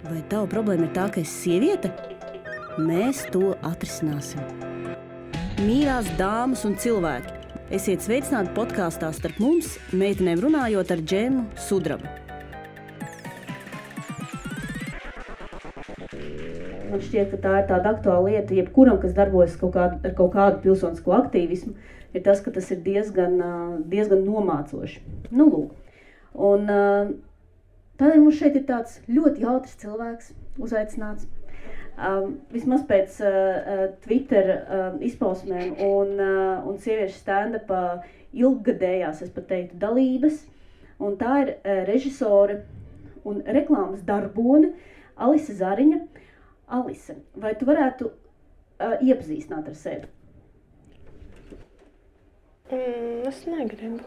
Vai tava problēma ir tā, ka esi sieviete? Mēs to atrisināsim. Mīļās dāmas un cilvēki, esiet sveicināti podkāstā Starp mums, meitenēm runājot ar Džemu Sudrabu. Man šķiet, ka tā ir tāda aktuāla lieta, jebkuram, kas darbojas ar kaut kādu pilsonisko aktīvismu, ir tas, ka tas ir diezgan nomācoši. Nu, lūk. Un tādēļ mums šeit ir tāds ļoti jautrs cilvēks uzaicināts. Vismaz pēc Twitter izpausmēm un sieviešu stand-upa ilggadējās, es pat teiktu, dalības. Un tā ir režisore un reklāmas darbone Alise Zariņa. Alise, vai tu varētu iepazīstināt ar sevi? Es negribu.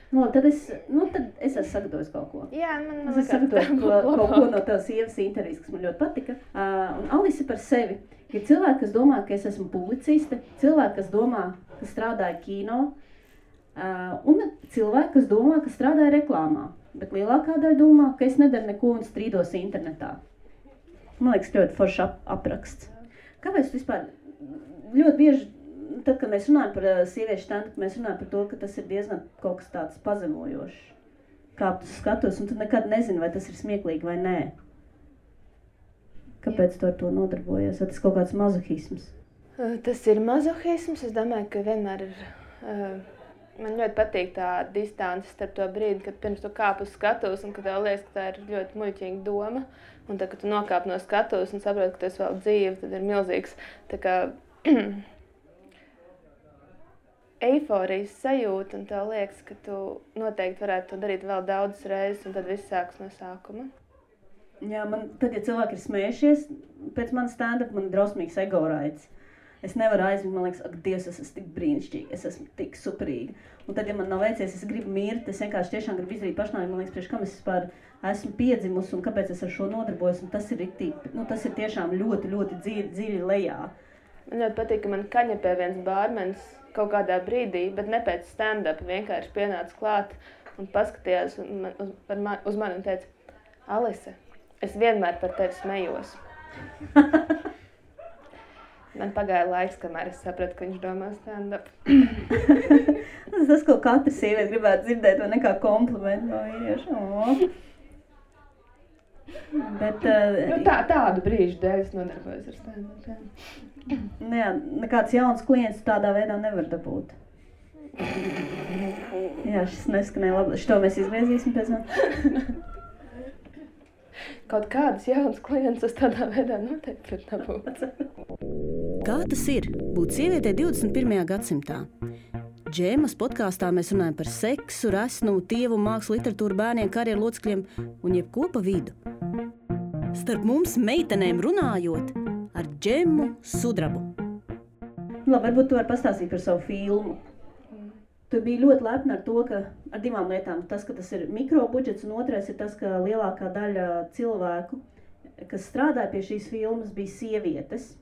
Tad es esmu sagatavojis kaut ko. Jā, man es sagatavoju kaut ko no tavas sievas intervijas, kas man ļoti patika. Un Alise par sevi ir cilvēki, kas domā, ka es esmu publiciste, cilvēki, kas domā, ka strādāju kino, un cilvēki, kas domā, ka strādāju reklāmā. Bet lielākā daļa domā, ka es nedaru neko un strīdos internetā. Man liekas, ļoti forši apraksts. Kāpēc vispār ļoti bieži, tad, kad mēs runājam par sieviešu stand-up, mēs runājam par to, ka tas ir diezgan kaut kas tāds pazemojošs. Kāp tu skatos, un tu nekad nezini, vai tas ir smieklīgi vai nē. Kāpēc tu ar to nodarbojies? Vai tas kaut kāds mazohisms? Tas ir mazohisms. Es domāju, ka vienmēr ir... Man ļoti patīk tā distance starp to brīdi, kad pirms tu kāp uz skatuves un kad tev liekas, ka tā ir ļoti muļķīga doma. Un tad, kad tu nokāp no skatuves un saproti, ka tu esi vēl dzīve, tad ir milzīgs tā kā eiforijas sajūta un tev liekas, ka tu noteikti varētu to darīt vēl daudzas reizes un tad viss sāks no sākuma. Jā, tad, ja cilvēki ir smējušies, pēc manas stand-up man ir drausmīgs ego raids. Es nevaru aizmigt, man liekas, ak, Dievs, es esmu tik brīnišķīga, es esmu tik superīga. Un tad, ja man nav veicies, es gribu mirt, es vienkārši tiešām gribu izdarīt pašnāvību, man liekas, priekš kam es vispār esmu piedzimusi un kāpēc es ar šo nodarbojos. Un tas ir riktīgi, tas ir tiešām ļoti, ļoti dziļi lejā. Man ļoti patīk, ka man kaņepē viens bārmenis kaut kādā brīdī, bet ne pēc stand-up, vienkārši pienāca klāt un paskatījās uz mani un teica, Alise, es vienmēr par tevi smējos. Man pagāja laiks, kamēr es sapratu, ka viņš domā stand-up. Tas, ko katra sieviete gribētu dzirdēt, vai nekā komplimentu no vīrieša. Bet, tādu brīžu dēļ es nodarbojos ar stand-up. Jā, nekāds jauns klients tādā veidā nevar dabūt. Jā, šis neskanēja labi. Šito mēs izgriezīsim pēc tam. Kaut kādas jaunas klientus es tādā veidā noteikti var dabūt. Kā tas ir būt sievietei 21. gadsimtā? Džēmas podkāstā mēs runājam par seksu, resnumu, tievu, mākslu, literatūru, bērniem, karjeru locekļiem un jebko pa vidu. Starp mums meitenēm runājot ar Džemu Sudrabu. Labi, varbūt tu vari pastāstīt par savu filmu. Tu biji ļoti lepna ar to, ka ar divām lietām. Tas, ka tas ir mikrobudžets, un otrais ir tas, ka lielākā daļa cilvēku, kas strādāja pie šīs filmas, bija sievietes.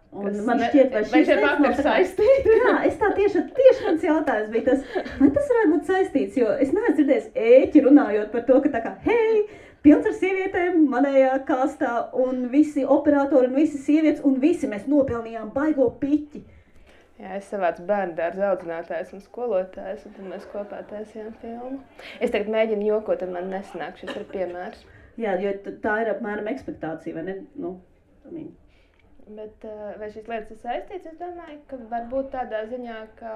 Un man šķiet, vai šīs lietas nav saistītas? Jā, es tā tieši mans jautājums bija tas, vai tas varētu būt saistīts, jo es neesmu dzirdējis ēķi runājot par to, ka tā kā, hei, pilns ar sievietēm manējā kastā, un visi operatori, un visi sievietes, un visi mēs nopelnījām baigo piķi. Jā, es savācu bērnu dārza audzinātājs un skolotājs, un tad mēs kopā taisījām filmu. Es tagad mēģinu jokot, un man nesanāk, šis ir piemērs. Jā, jo tā ir apmēram ekspektācija, vai ne? Bet vai šīs lietas ir saistītas? Es domāju, ka varbūt tādā ziņā, ka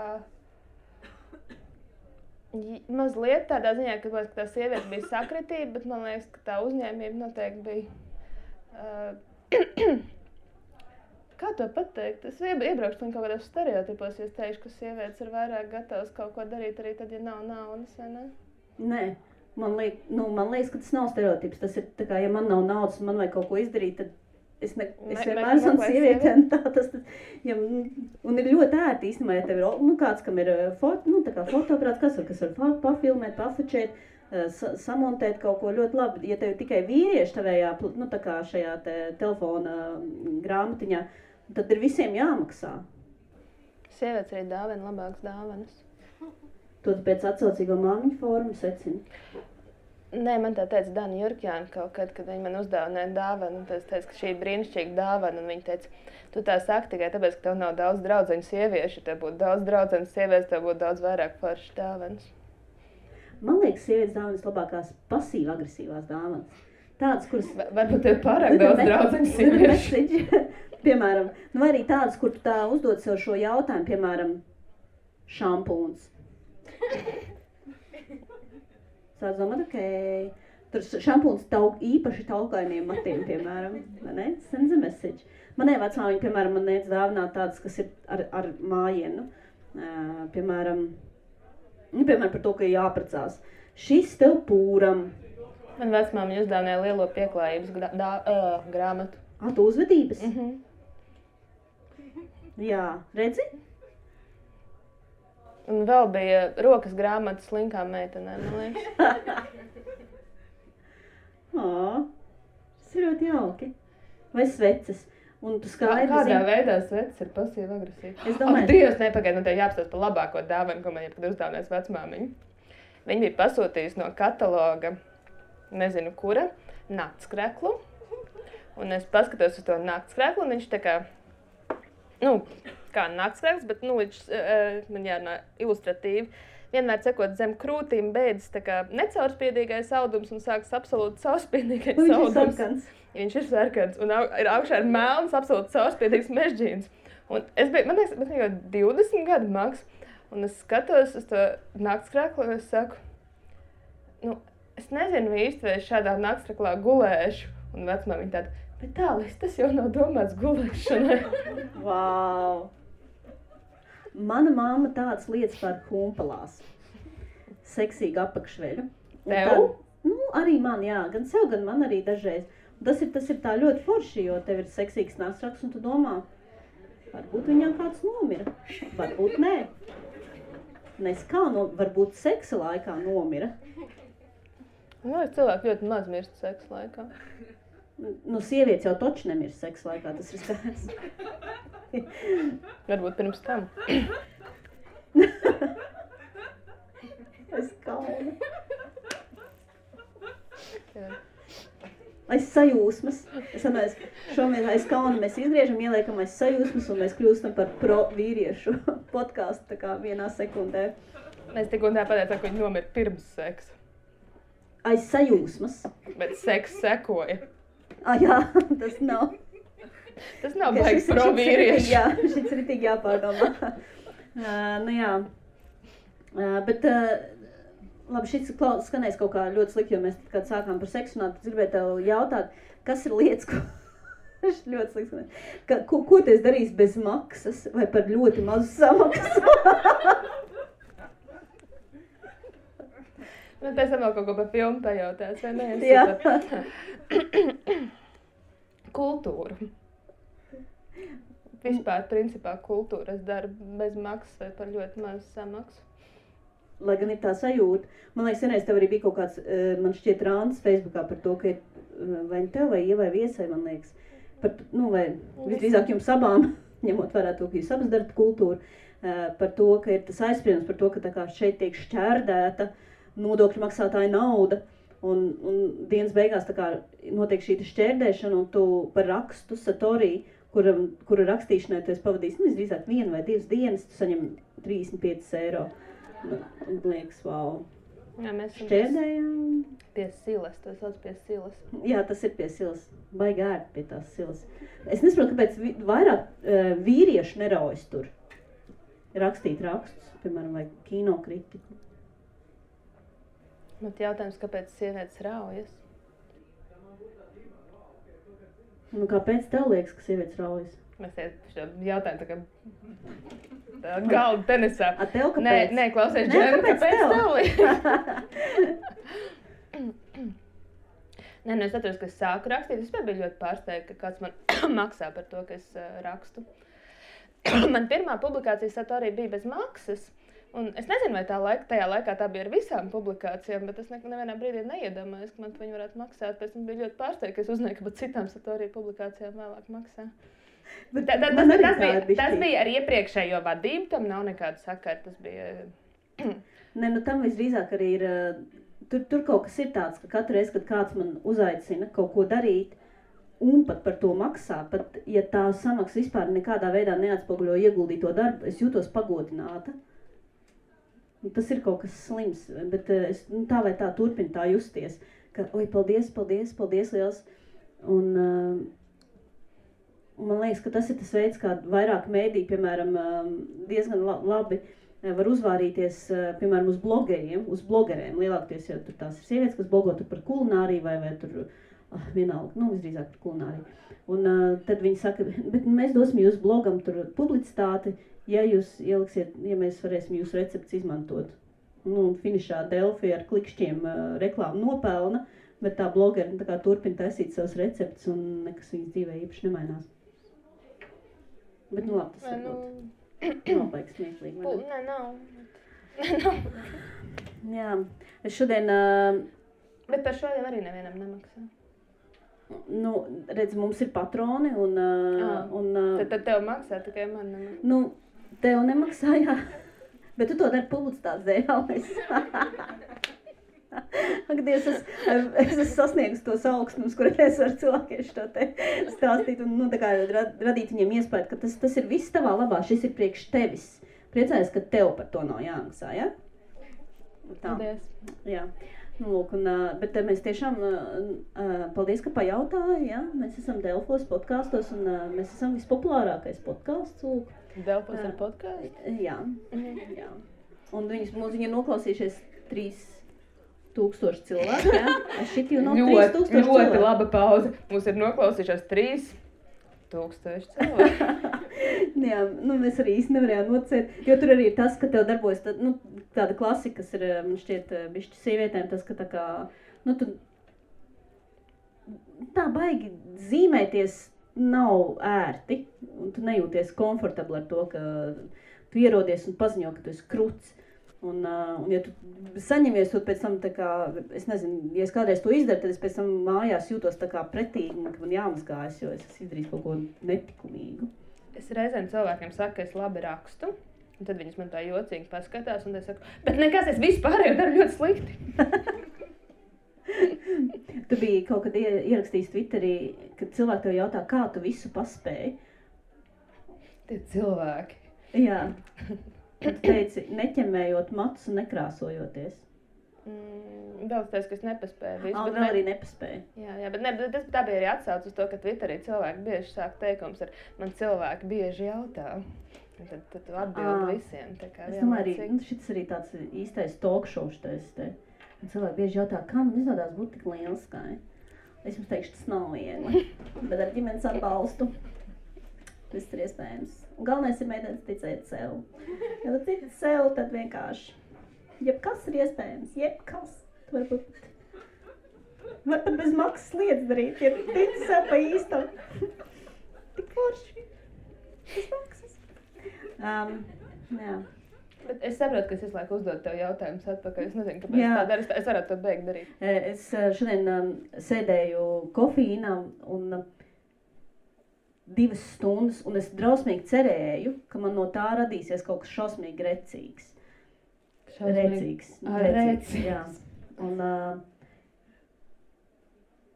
mazliet tādā ziņā, ka tā sieviete bija sakritība, bet man liekas, ka tā uzņēmība noteikti bija... Kā to pateikt? Es iebraukšu kaut kādos stereotipos, ja es teikšu, ka sievietes ir vairāk gatavas kaut ko darīt arī tad, ja nav naudas, vai ne? Nē, man liekas, ka tas nav stereotips. Tas ir tā kā, ja man nav naudas un man vajag kaut ko izdarīt, tad es vienmēr esmu sieviete. Un ir ļoti ērti īstenībā, ja tev ir kāds, kam ir fotoaparāts, kas var pafilmēt, pafočēt, samontēt kaut ko ļoti labi. Ja tev ir tikai vīrieši tavējā, tā kā šajā telefona grāmatiņā, tad ir visiem jāmaksā. Sievietes arī dāvina labākas dāvanas. To pēc atsaucīgo māmiņu formu secina. Nē, man tā teica Dana Jurkjāna kaut kad viņa man uzdāvināja dāvanu. Es teicu, ka šī ir brīnišķīga dāvana. Un viņa teica, tu tā saki tikai tāpēc, ka tev nav daudz draudzeņu sieviešu. Ja tev būtu daudz draudzeņu sievietes, tev būtu daudz vairāk foršas dāvanas. Man liekas, sievietes dāvanas labākās pasīvi-agresīvās dāvanas. Tādas, kuras... Varbūt tev pārāk daudz draudzeņu sieviešu. Piemēram, vai arī tādas, kur tu tā uzdod sev šo jautājumu, piemēram, šampūns. Sāc domāt, okei. Tur šampūns īpaši taukainiem matiem, piemēram. Ne? Sends a message. Manai vecmāmiņa, piemēram, man nēc dāvināt tādas, kas ir ar mājienu. Piemēram, par to, ka jāprecās. Šis tev pūram. Man vecmāmiņa uzdāvināja lielo pieklājības grāmatu. Tu uzvedības? Jā, redzi? Un vēl bija rokas grāmatas slinkām meitenēm, man liekas. Tas ir ļoti jauki. Vai sveces. Un tu skaidri Kādā veidā sveces ir pasīva agresīva? Es domāju... Dievs, nepagaid, man tev jāapstāst par labāko dāvanu, ko man jebkad uzdāvinājis vecmāmiņa. Viņa bija pasūtījusi no kataloga, nezinu kura, naktskreklu. Un es paskatos uz to naktskreklu, un viņš tā kā, kā naktskrekls, bet, man jārunā ilustratīvi. Vienmēr cekot zem krūtīm beidzas tā kā necaurspiedīgais audums un sākas absolūti caurspiedīgais audums. Viņš ir sarkans un augšā ir melns, absolūti caurspiedīgs mežģīns. Un man liekas, man jau 20 gadu maks, un es skatos uz to naktskreklu un es saku, es nezinu īsti, vai es šādā naktskreklā gulēšu. Un vecmāmiņa tāda, bet tālāk, tas jau nav domāts gulēšanai. Vau! Mana mamma tādas lietas par humpalās. Seksīgu apakšveļu. Tev? Arī man, jā. Gan sev, gan man arī dažreiz. Un tas ir tā ļoti forši, jo tev ir seksīgs naksraksts un tu domā, varbūt viņam kāds nomira. Varbūt nē. Nes kā, varbūt seksa laikā nomira. Cilvēki ļoti maz mirst seksa laikā. Sievietes jau toči nemirst seksa laikā, tas ir skaidrs. Varbūt pirms tam. Es kaunu. Aiz sajūsmas. Es domāju, šomien aiz kauna mēs izgriežam, ieliekam aiz sajūsmas un mēs kļūstam par pro vīriešu podcastu tā kā vienā sekundē. Mēs tik un tā pateicām, ka viņi nomira pirms seksa. Aiz sajūsmas. Bet seks sekoja. Jā, tas nav. Tas nav baigs pro vīrieši. Jā, šis ir tik jāpārdomā. Jā. Bet, labi, šis skanēs kaut kā ļoti slikti, jo mēs kad sākām par seksu runāt, gribēju tev jautāt, kas ir lietas, ko... ļoti slikti skanēs. Ko tu esi darījis bez maksas vai par ļoti mazu samaksu? Pēc tam vēl kaut ko par filmu pajautās, vai ne? Jā. Kultūru. Vispār, principā, kultūru es daru bez maksas vai par ļoti mazu samaksu. Lai gan ir tā sajūta. Man liekas, vienreiz tev arī bija kaut kāds, man šķiet, rāns Facebookā par to, ka ir vai tev vai Ievai Viesai, man liekas. Vai visdrīzāk jums abām, ņemot vērā to, ka jūs abas darat kultūru, par to, ka ir tas aizspriedums par to, ka tā kā šeit tiek šķērdēta nodokļu maksātāja nauda, un dienas beigās tā kā notiek šī šķērdēšana, un tu par rakstu Satorī, kura rakstīšanai tu esi pavadījis, visdrīzāk 1 vai 2 dienas, tu saņem 35 eiro. Un liekas, vau. Jā, mēs šķērdējām. Pie silas, tas sauc pie silas. Jā, tas ir pie silas. Baigi ērt pie tās silas. Es nesaprotu, kāpēc vairāk vīrieši neraujas tur rakstīt rakstus, piemēram, vai kinokritiku. Bet jautājums, kāpēc sievietes raujas? Kāpēc tev liekas, ka sievietes raujas? Mēs šo jautājumu tā kā galdu tenisā. A tev kāpēc? Nē, klausies, Džēma, kāpēc tev liekas? Nē, es atceros, ka es sāku rakstīt. Es biju ļoti pārsteigta, ka kāds man maksā par to, ka es rakstu. Man pirmā publikācija Satorī bija bez maksas. Un es nezinu, vai tajā laikā tā bija ar visām publikācijām, bet es nevienā brīdī neiedomājos, ka man viņi varētu maksāt. Pēc tam bija ļoti pārsteigta, ka es uzzināju, ka pat citām Satorī publikācijām vēlāk maksā. Tas bija ar iepriekšējo vadību, tam nav nekāda sakara. Tas bija... Tam visdrīzāk arī ir tur kaut kas ir tāds, ka katru reizi, kad kāds man uzaicina kaut ko darīt, un pat par to maksā, pat ja tā samaksa vispār nekādā veidā neatspoguļo ieguldīto darbu, es jūtos pagodināta. Un tas ir kaut kas slims, bet es tā vai tā turpinu tā justies, ka, oi, paldies liels. Un man liekas, ka tas ir tas veids, kā vairāk mēdī, piemēram, diezgan labi var uzvārīties, piemēram, uz blogeriem, uz blogerēm. Lielākoties jau tur tās ir sievietes, kas blogo tur par kulināriju vai tur vienalga, visdrīzāk par kulināriju. Un tad viņi saka, bet mēs dosim jūs blogam tur publicitāti, ja jūs ieliksiet, ja mēs varēsim jūsu recepts izmantot. Un finišā Delfi ar klikšķiem reklāmu nopelna, bet tā blogeri tā kā turpina taisīt savus receptus un nekas viņas dzīvē īpaši nemainās. Bet labi, tas nav baigs smieklīgi, vai ne? Nav. Jā, es šodien... Bet par šodien arī nevienam nemaksā. Redz, mums ir patroni un... Tad tev maksā, tikai man nemaksā. Tev nemaksā, jā. Bet tu to dari publicitātes dēļ. Ak, Dievs, es esmu sasniegusi tos augstumus, kur es varu cilvēkiem šo te stāstīt un tā kā radīt viņiem iespēju, ka tas ir viss tavā labā, šis ir priekš tevis. Priecājies, ka tev par to nav jāmaksā, ja? Paldies. Jā. Lūk, bet mēs tiešām, paldies, ka pajautāji, ja? Mēs esam Delfos podkastos un mēs esam vispopulārākais podkasts, lūk. Delfos ir podkāsts? Jā, jā. Un viņi ir noklausījušies 3000 cilvēku, jā? Šit jau nav 3000 cilvēku. Ļoti laba pauze. Mums ir noklausījušās 3000 cilvēku. Jā, mēs arī īsti nevarējām nocēt, jo tur arī ir tas, ka tev darbojas tāda klasika, kas ir, man šķiet, bišķi sievietēm, tas, ka tā kā, tu tā baigi zīmēties nav ērti, un tu nejūties komfortabli ar to, ka tu ierodies un paziņo, ka tu esi kruts. Un ja tu saņemies to pēc tam, tā kā, es nezinu, ja es kādreiz to izdaru, tad es pēc tam mājās jūtos tā kā pretīgi, ka man jāmazgājas, jo es esmu izdarījis kaut ko netikumīgu. Es reizēm cilvēkiem saku, ka es labi rakstu, un tad viņas man tā jocīgi paskatās, un es saku, bet nekas, es vispārējo daru ļoti slikti. Tu biji kaut kad ierakstījis Twitterī, kad cilvēki tev jautā, kā tu visu paspēji? Tie cilvēki. Jā. Tu teici, neķemējot matus un nekrāsojoties. Vēl es teicu, ka es nepaspēju visu. Vēl arī nepaspēju. Jā, bet tā bija arī atsauc uz to, ka Twitterī cilvēki bieži sāk teikums ar man cilvēki bieži jautā. Tad tu atbildi visiem. Tā kā es domāju arī, šis arī tāds īstais talk show šitais te. Un cilvēki bieži jautā, kā man izrādās būt tik lielskai. Es jums teikšu, tas nav viegli, bet ar ģimenes atbalstu viss ir iespējams. Un galvenais ir mēģināt ticēt sev. Ja tu tici sev, tad vienkārši jebkas ir iespējams, jebkas. Tu var pat bez maksas lietas darīt, ja tu tici sev pa īstam. Tik forši. Bez maksas. Jā. Bet es saprotu, ka es visu laiku uzdodu tev jautājumus atpakaļ. Es nezinu, kāpēc tā dara. Es varētu to beigt darīt. Es šodien sēdēju kofīnā un 2 stundas, un es drausmīgi cerēju, ka man no tā radīsies kaut kas šausmīgi recīgs. Recīgs. Jā. Un,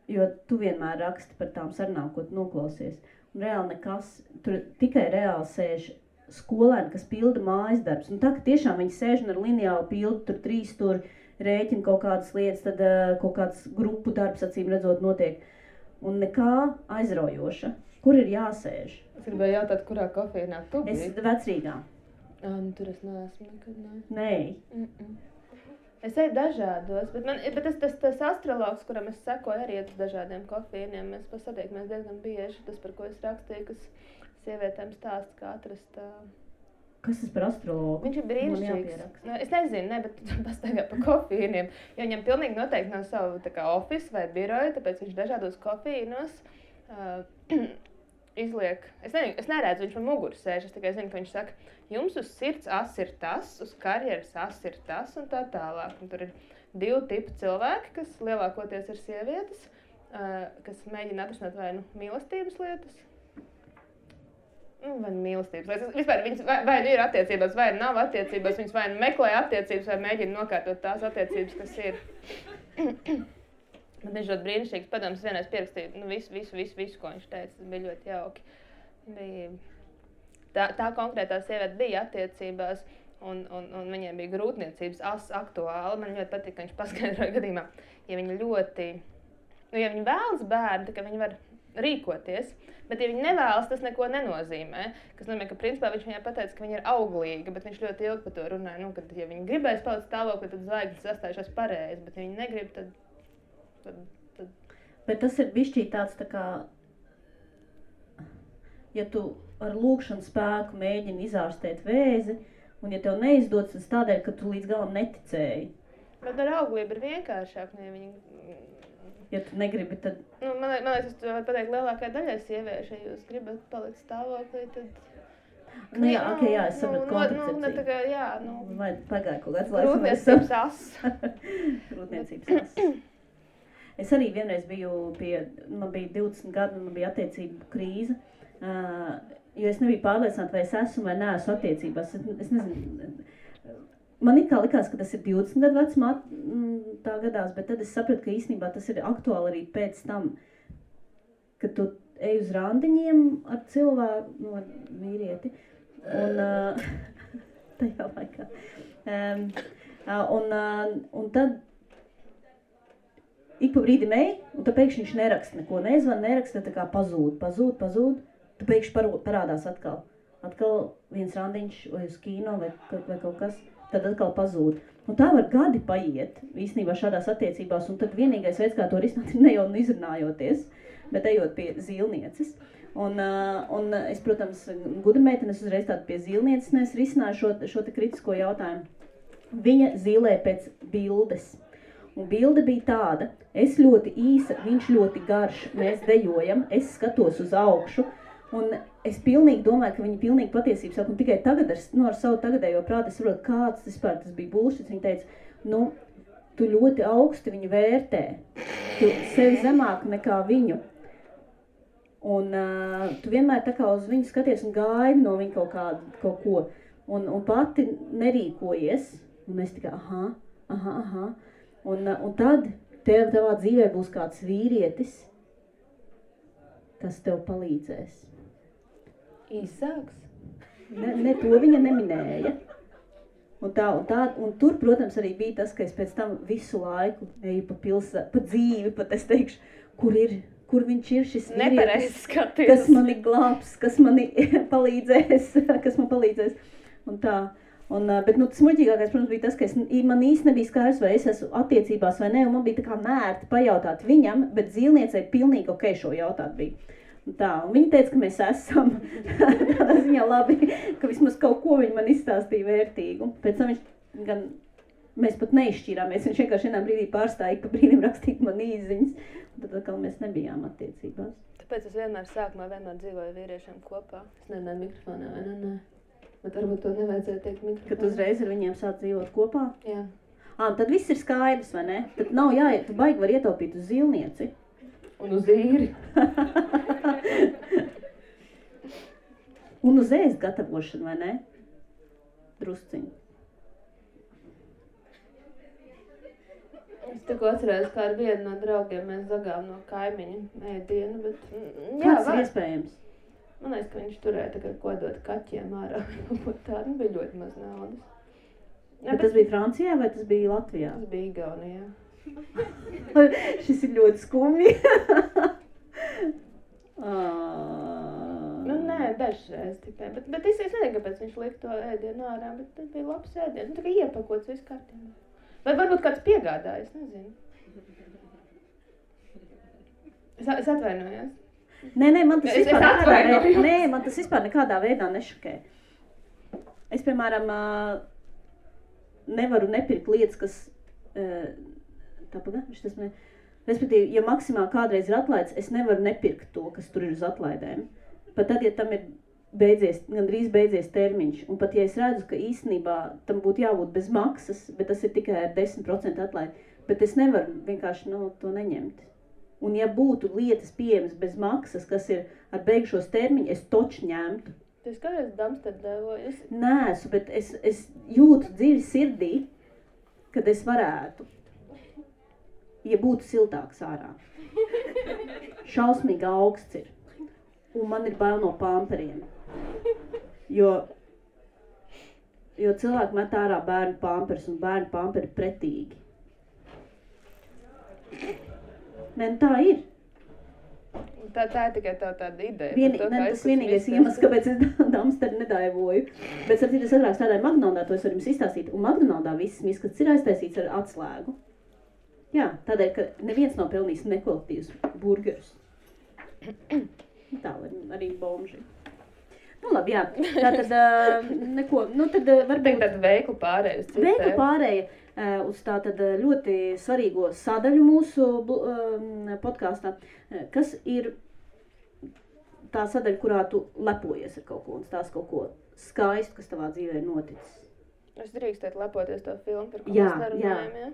jo tu vienmēr raksti par tām sarunām, ko tu noklausies. Un reāli nekas, tur tikai reāli sēž skolēni, kas pilda mājas darbs. Un tā, ka tiešām viņi sēž un ar lineāli pilda tur 3 tur rēķina kaut kādas lietas, tad kaut kāds grupu darbs, acīm redzot, notiek. Un nekā aizraujoša. Kur ir jāsēž? Es gribēju jautāt, kurā kofīnā tu biji? Es Vecrīgā. Tur es neesmu nekad, ne? Nē. Es eju dažādos, bet tas astrologs, kuram es sekoju arī uz dažādiem kofīniem, mēs pasatiekamies diezgan bieži. Tas, par ko es rakstīju, kas sievietēm stāsta, kā atrast... Kas tas par astrologu? Viņš ir brīnišķīgs. Es nezinu, bet pastaigā par kofīniem. Jo viņam pilnīgi noteikti nav savu tā kā office vai biroju, tāpēc viņš dažādos kofīnos izliek... Es neredzu, viņš man muguru sēž, es tikai zinu, ka viņš saka, jums uz sirds as ir tas, uz karjeras as ir tas un tā tālāk. Un tur ir 2 tipu cilvēki, kas lielākoties ir sievietes, kas mēģina atrisināt vai mīlestības lietas. vai mīlestības. Vispār viņas vai ir attiecībās, vai nav attiecībās, viņas vai meklē attiecības, vai mēģina nokārtot tās attiecības, kas ir. Bet viņš ļoti brīnišķīgs padoms, vienreiz pierakstīja visu, ko viņš teica, tas bija ļoti jauki. Tā konkrētā sieviete bija attiecībās, un viņiem bija grūtniecības aktuāli. Man ļoti patīk, ka viņš paskaidroja gadījumā, ja viņi vēlas bērnu, ka viņi var rīkoties, bet ja viņi nevēlas, tas neko nenozīmē. Kas nozīmē, ka principā viņš viņai pateica, ka viņa ir auglīga, bet viņš ļoti ilgi par to runāja. Kad ja viņi gribēs palikt stāvoklī, tad zvaigznes sastājušās pareizi, bet ja viņi negrib, tad... Bet tas ir bišķīt tāds tā kā, ja tu ar lūkšanu spēku mēģini izārstēt vēzi, un ja tev neizdodas, tas tādēļ, ka tu līdz galam neticēji. Bet ar auglību ir vienkāršāk, ja viņi... Ja tu negribi, tad... Man liekas, es varu pateikt lielākai daļai sieviešu, ja jūs gribat palikt stāvoklī, tad... Jā, es sapratu koncepciju. Vai pagāja kaut kāds laiks? Grūtniecības as. Grūtniecības as. Es arī vienreiz biju man bija 20 gadi, un man bija attiecību krīze, jo es nebiju pārliecināta, vai es esmu vai neesmu attiecībās. Es nezinu, man it kā likās, ka tas ir 20 gadu vecumā tā gadās, bet tad es sapratu, ka īstenībā tas ir aktuāli arī pēc tam, kad tu ej uz randiņiem ar cilvēku, ar vīrieti, un tajā laikā. Un tad ik pa brīdim ej, un tad pēkšņi viņš neraksta neko, neraksta, tā kā pazūd, tad pēkšņi parādās atkal. Atkal viens randiņš vai uz kino vai kaut kas, tad atkal pazūd. Un tā var gadi paiet, īstenībā šādās attiecībās, un tad vienīgais veids, kā to risināt, ir ne jau izrunājoties, bet ejot pie zīlnieces. Un es, protams, gudra meitene, es uzreiz tādu pie zīlnieces, es risināju šo te kritisko jautājumu. Viņa zīlē pēc bildes. Un bilde bija tāda, es ļoti īsa, viņš ļoti garš, mēs dejojam, es skatos uz augšu, un es pilnīgi domāju, ka viņa pilnīgi patiesību saka, un tikai tagad ar savu tagadējo prātu es saprotu, kāds tas bija bullshit. Viņa teica, tu ļoti augsti viņu vērtē, tu sevi zemāk nekā viņu, un tu vienmēr tā kā uz viņu skaties un gaidi no viņa kaut ko, un pati nerīkojies, un es tikai, aha. Un tad tavā dzīvē būs kāds vīrietis, kas tev palīdzēs. Īsāks? Ne, to viņa neminēja. Un tur, protams, arī bija tas, ka es pēc tam visu laiku eju pa dzīvi, pat es teikšu, kur viņš ir šis vīrietis, kas mani glābs, kas mani palīdzēs, un tā. Bet tas muļķīgākais, protams, bija tas, ka man īsti nebija skaidrs, vai es esmu attiecībās vai ne, un man bija tā kā nērti pajautāt viņam, bet zīlniecei pilnīgi ok šo jautāt bija. Un viņa teica, ka mēs esam tādā ziņā labi, ka vismaz kaut ko viņa man izstāstīja vērtīgu. Pēc tam mēs pat neizšķīrāmies, viņš vienkārši vienā brīdī pārstāja, pa brīdim rakstīt man īziņas, un tad atkal mēs nebijām attiecībās. Tāpēc es sākumā dzīvoju vīriešiem kopā. Es nerunāju mikrofonā, vai ne? Bet varbūt to nevajadzēja teikt mikrofonā. Kad uzreiz ar viņiem sāc dzīvot kopā? Jā. Tad viss ir skaidrs, vai ne? Tad nav jāiet, tu baigi var ietaupīt uz zīlnieci. Un uz īri. Un uz ēst gatavošanu, vai ne? Drusciņu. Es tikko atcerējos, kā ar vienu no draugiem mēs zagām no kaimiņa ēdienu, bet... Kāds ir iespējams? Man liekas, ka viņš turēja tagad kodot kaķiem ārā. Tā bija ļoti maz naudas. Bet tas bija Francijā vai tas bija Latvijā? Tas bija Igaunijā. Šis ir ļoti skumji. Nē, dažreiz tikai. Bet es nezinu, kāpēc viņš lika to ēdienu ārā, bet tas bija labs ēdiens. Tā kā iepakots viss kārtībā. Vai varbūt kāds piegādājas, nezinu. Es atvainojos. Nē, man tas vispār nekādā veidā nešokē. Es, piemēram, nevaru nepirkt lietas, kas... Respektīvi, ja maksimāli kādreiz ir atlaids, es nevaru nepirkt to, kas tur ir uz atlaidēm. Pat tad, ja tam ir gandrīz beidzies termiņš, un pat ja es redzu, ka īstenībā tam būtu jābūt bez maksas, bet tas ir tikai ar 10% atlaidi, bet es nevaru vienkārši to neņemt. Un ja būtu lietas pieejamas bez maksas, kas ir ar beigšos termiņu, es toču ņemtu. Tu esi kādreiz Damsterdēvojusi? Nēsu, bet es jūtu dziļi sirdī, kad es varētu, ja būtu siltāks ārā. Šausmīgi augsts ir. Un man ir bail no pamperiem. Jo cilvēki met ārā bērnu pampers, un bērnu pamperi pretīgi. Nē, tā ir. Tā ir tikai tāda ideja. Tas vienīgais iemesls, kāpēc es Damsteru nedaivoju. Bet es agrāk strādāju McDonaldā, to es varu jums izstāstīt. Un McDonaldā viss miskats ir aiztaisīts ar atslēgu. Jā, tādēļ, ka neviens nav pelnījis nekvalitīvus burgerus. Tā arī bomži. Nu labi, jā. Tātad neko, tad varbūt... Tāda veikla pārēja uz citiem. Veikla pārēja uz tātad ļoti svarīgo sadaļu mūsu podkāstā, kas ir tā sadaļa, kurā tu lepojies ar kaut ko un stāsti kaut ko skaistu, kas tavā dzīvē ir noticis. Es drīkstētu lepoties to filmu, par ko mēs nerunājam, jā?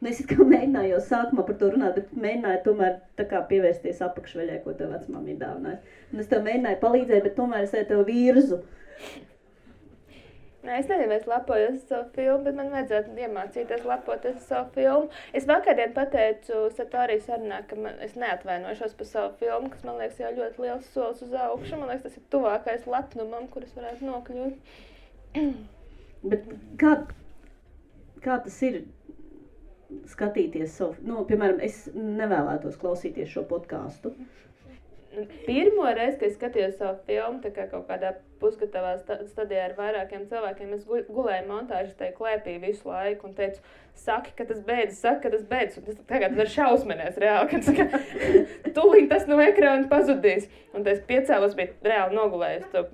Nu, es it kā mēģināju jau sākumā par to runāt, bet mēģināju tomēr tā kā pievērsties apakšveļai, ko tev vecmāma ir dāvinājusi. Un es tev mēģināju palīdzēt, bet tomēr es tev virzu. Nē, es nezinu, es lepojos ar savu filmu, bet man vajadzētu iemācīties lepoties ar savu filmu. Es vakardien pateicu Satorijas sarunā, ka es neatvainošos par savu filmu, kas man liekas jau ļoti liels solis uz augšu. Man liekas, tas ir tuvākais lepnumam, kuras varētu nokļūt. Bet kā tas ir skatīties savu, piemēram, es nevēlētos klausīties šo podkāstu. Pirmo reizi, kad es skatījos savu filmu, tā kā kaut kādā pusgatavā stadijā ar vairākiem cilvēkiem, es gulēju montāžas tajā klēpī visu laiku un teicu, saki, ka tas beidzas, un tas tagad var šausmenēs reāli, ka tūlīt tas no ekrāna pazudīs. Un es piecēlos, biju reāli nogulējis to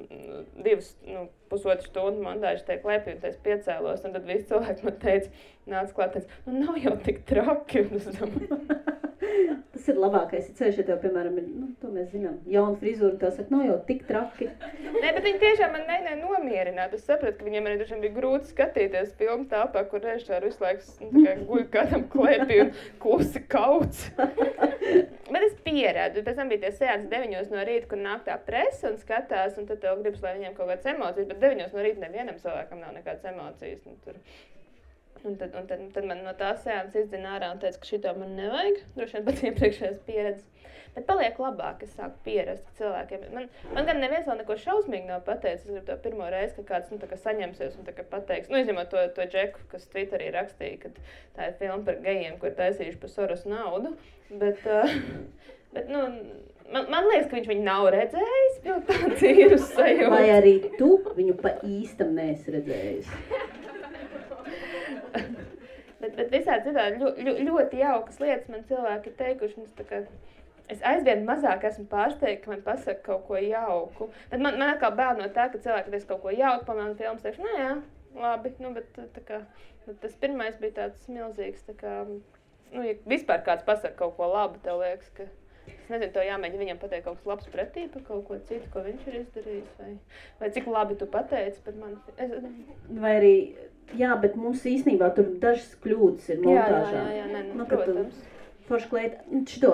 2,5 stundu montāžas tajā klēpī, un es piecēlos, un tad visi cilvēki man teica, nāc klāt, nav jau tik traki. Tas ir labākais, ceļš, ja tev, piemēram, ir, to mēs zinām, jauna frizūra, tā saka, nav jau tik traki. Nē, bet viņi tiešām man mēģināja nomierināt. Es sapratu, ka viņiem arī dažiem bija grūti skatīties filmu tāpā, kur režisāri visu laiku guļ kādam klēpī un klusi kauts. Bet es pierādu. Pēc tam bija tie seansi 9 no rīta, kur nāk tā presa un skatās, un tad tev gribas, lai viņiem kaut kādas emocijas, bet 9 no rīta nevienam cilvēkam nav nekādas emocijas. Un tad man no tās seanses izdzina ārā un teica, ka šito man nevajag. Droši vien pat iepriekšējās pieredzes. Bet paliek labāk, es sāku pierast cilvēkiem. Man gan neviens vēl neko šausmīgi nav pateicis. Es gribu to pirmo reizi, ka kāds tā kā saņemsies un tā kā pateiks. Izņemot to Džeku, kas Twitterī rakstīja, ka tā ir filma par gejiem, ko ir taisījuši par Soros naudu. Bet man liekas, ka viņš viņu nav redzējis. Tāds ir uz sajūta. Vai arī tu viņu pa īstam neesi redzējis? bet visādi citādi ļoti jaukas lietas man cilvēki ir teikuši. Es aizvien mazāk esmu pārsteigta, ka man pasaka kaut ko jauku. Bet man atkal bail no tā, ka cilvēki teiks kaut ko jauku, pamēram filmas, teikšu, jā, labi. Bet tas pirmais bija tāds milzīgs, ja vispār kāds pasaka kaut ko labu, tev liekas, ka... Es nezinu, to jāmēģina viņam pateikt kaut kas labs pretī par kaut ko citu, ko viņš ir izdarījis, vai cik labi tu pateici par mani. Vai arī, jā, bet mums īstenībā tur dažas kļūdas ir montāžā. Jā, protams. Forši klēt, šito